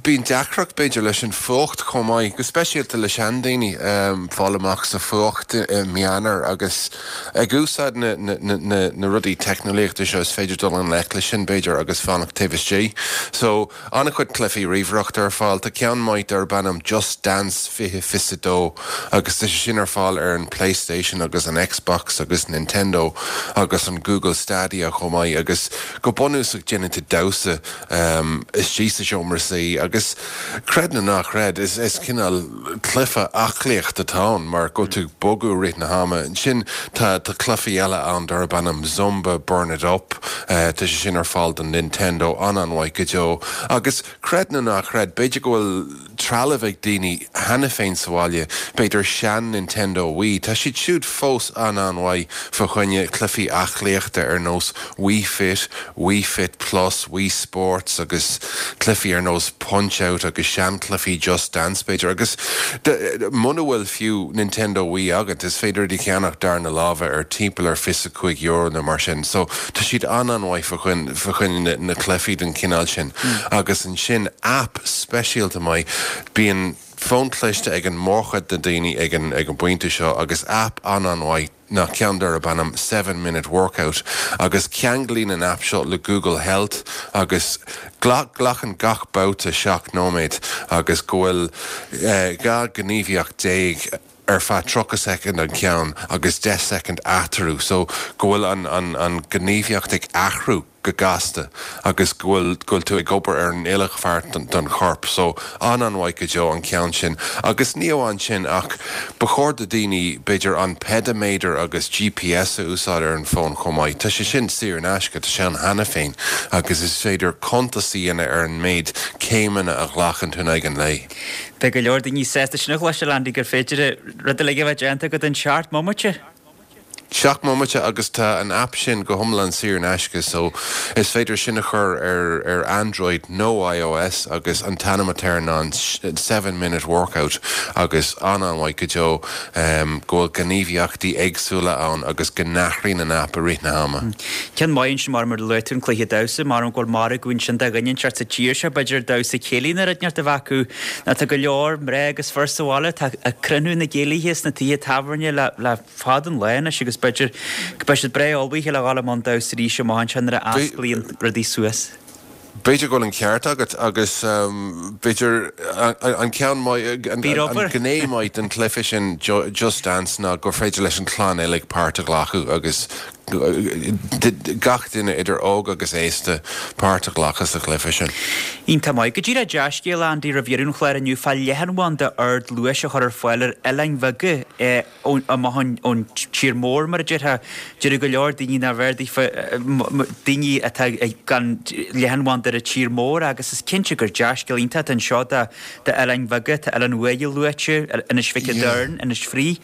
bíonn deacracht b'fhéidir leis an fuacht chomh maith, go speisialta le seandaoine, fáil amach sa fuacht i mí Eanáir agus ag úsáid na rudaí teicneolaíochta seo is féidir dul i ngleic leis sin b'fhéidir agus fanacht taobh istigh. So, An-chuid cluichí ríomhaireachta ar fáil. Tá ceann maith darb ainm Just Dance 2022 agus tá sé sin ar fáil ar an Playstation agus an Xbox agus Nintendo agus an Google Stadia chomh maith agus go bunúsach déanann tú damhsa istigh sa seomra suí agus creid nó ná creid is cineál cluiche aclaíochta atá ann mar go bhfuil tú ag bogadh i rith na hama. Ansin tá cluichí eile ann darb ainm Zumba Burn It Up. Tá sé sin ar fáil don Nintendo, an-an-mhaith go deo. Agus creid nó ná creid, b'fhéidir go bhfuil trealamh ag daoine cheana féin sa bhaile, b'fhéidir sean-Nintendo Wii, tá siad siúd fós an-an-mhaith fá choinne cluichí aclaíochta ar nós Wii Fit, Wii Fit Plus, Wii Sports agus cluichí ar nós Punch Out agus seanchluichí Just Dance b'fhéidir. Agus muna bhfuil fiú Nintendo Wii agat, is féidir iad a cheannach darna láimhe ar timpeall ar €25 nó mar sin. So tá siad an-an-mhaith fá choinne na cluichí den chineál sin. Agus ansin aip speisialta maith, bíonn fón cliste ag an mórchuid de daoine ag an bpointe seo agus aip an-an-mhaith ná ceann darb ainm Seven Minute Workout agus ceanglaíonn an aip seo le Google Health agus glacann gach babhta 7 nóiméad agus go bhfuil 12 gníomhaíocht ar feadh 30 soicind an ceann agus 10 soicind eatarthu so go bhfuil an an an gníomhaíocht ag athrú go gasta agus go bhfuil go bhfuil tú ag obair ar an uile pháirt den chorp so an-an-mhaith go deo an ceann sin agus ní amháin sin ach ba chóir do daoine b'fhéidir an peidiméadar agus GPS a úsáid ar an bhfón chomh maith. Tá sé sin saor in aisce, tá sé ann cheana féin agus is féidir cuntas a dhéanamh ar an méid céimeanna a ghlacann tú in aghaidh an lae. Beidh go leor daoine sásta sin a chloisteáil Andy gur féidir rud uilig a bheith déanta agat in seacht mbomaite. Seacht mbomaite agus tá an aip sin go hiomlán saor in aisce so is féidir sin a chur ar ar Android nó iOS agus an t-ainm atá air ná an Seven Minute Workout agus an-an-mhaith go deo go bhfuil gníomhaíochtaí éagsúla ann agus go n-athraíonn an aip i rith na hama. Ceann maith ansin mar mar a luaigh tú an cluiche damhsa, mar go bhfuil margadh ansin do dhuine inteacht sa tír seo b'fhéidir damhsa céilí nó rud inteacht a bheith acu nó tá go leor mná agus fir sa bhaile atá ag cruinniú na gcéilithe sna tithe tábhairne le le fada an lá anois agus b'fhéidir go mbeidh siad breá ullmhaithe le dhul i mbun damhsa arís amach anseo nuair a osclaíonn rudaí suas. B'fhéidir go bhfuil an ceart agat agus b'fhéidir an ceann maith, an gné maith den chluiche sin Just Dance ná gur féidir leis an chlann uilig páirt a ghlacadh agus gach duine idir óg agus aosta páirt a ghlacadh sa chluiche sin. Iontach maith. Go díreach dea-scéal, Andy, roimh dheireadh an chláir inniu fá leathanbhanda ardluais a chur ar fáil ar oileáin bheaga amach ón tír mór, mar a déarfá. Deir go leor daoine nárbh fhearr daofa, daoine atá gan leathanbhanda ar an tír mór agus is cinnte gur dea-scéal iontach atá anseo d'oileáin bheaga, tá Oileán Uaighe luaite, Inis Mhic a' Doirn, Inis Fraoich.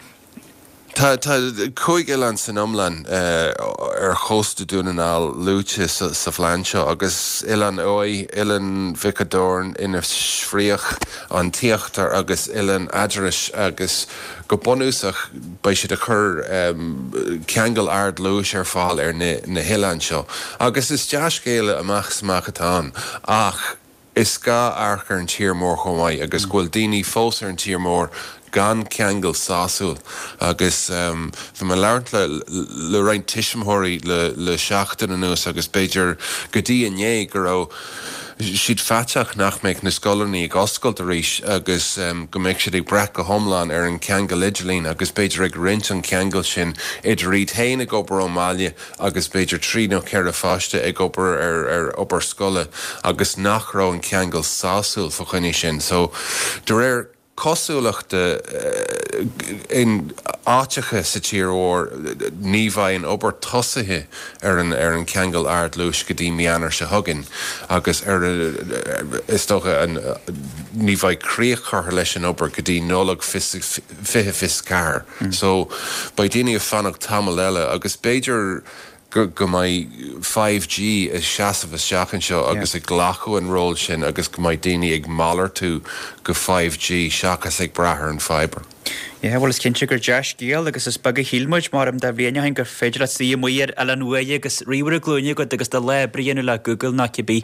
Tá 5 oileán san iomlán ar chósta Dún na nGall luaite sa phlean seo agus Oileán Uaighe, Oileán Mhic a' Doirn, Inis Fraoich, An tÍochtar agus Oileán Eadarais agus go bunúsach beidh siad ag cur ceangal ardluais ar fáil ar na hoileáin seo agus is dea-scéala amach is amach atá ann ach Is gá amharc ar an tír mór chomh maith agus go bhfuil daoine fós ar an tír mór gan ceangal sásúil agus bhí mé ag labhairt le le roinnt tuismitheoirí le le seachtain anuas agus b'fhéidir go dtí inné go raibh siad faiteach nach mbeadh na scoileanna ag oscailt arís agus go mbeadh siad ag brath go hiomlán ar an cheangal idirlín agus b'fhéidir ag roinnt an cheangail sin idir iad féin ag obair ón mbaile agus b'fhéidir 3 nó 4 pháiste ag obair ar ar obair scoile agus nach raibh an ceangal sásúil fa choinne sin. So, de réir cosúlachta, in áiteacha sa tír mhór ní bheidh an obair tosaithe ar an ar an cheangal ardluais go dtí mí Eanáir seo chugainn agus ar is dócha an ní bheidh críoch curtha leis an obair go dtí Nollaig 2024. So, beidh daoine ag fanacht tamall eile agus b'fhéidir go go mbeidh 5G ag seasamh isteach anseo agus ag glacadh an ról sin agus go mbeidh daoine ag malartú go 5G seachas ag brath ar an fibre. Yeah, bhuel is cinnte gur dea-scéal agus is beag a shíl muid, mar am dá bhliain ó shin gur féidir leat suí amuigh ar Oileán Uaighe agus ríomhaire glúine agat agus do lá oibre a dhéanamh le Google nó cibé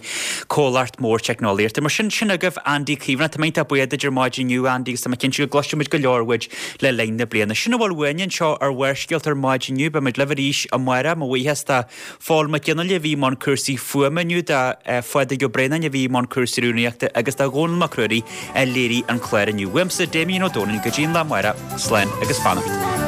comhlacht mór teicneolaíochta. Mar sin, sin agaibh Andy Caomhánach. Tá mé iontach buíoch duit ar maidin inniu, Andy, agus tá mé cinnte go gcloisfidh muid go leor uait le linn na bliana. Sin a bhfuil uainne anseo ar Bharrscéalta ar maidin inniu. Beidh muid libh arís amárach. Mo bhuíochas do Phól Mac Fhionnghaile a bhí i mbun cúrsaí fuaime inniu, do Phádraig Ó Braonáin a bhí i mbun cúrsaí rúnaíochta agus do Dhónall Mac Ruairí a léirigh an clár inniu. Uaimse, Damien Ó Dónaill, go dtí an lá amárach, slán agus beannacht.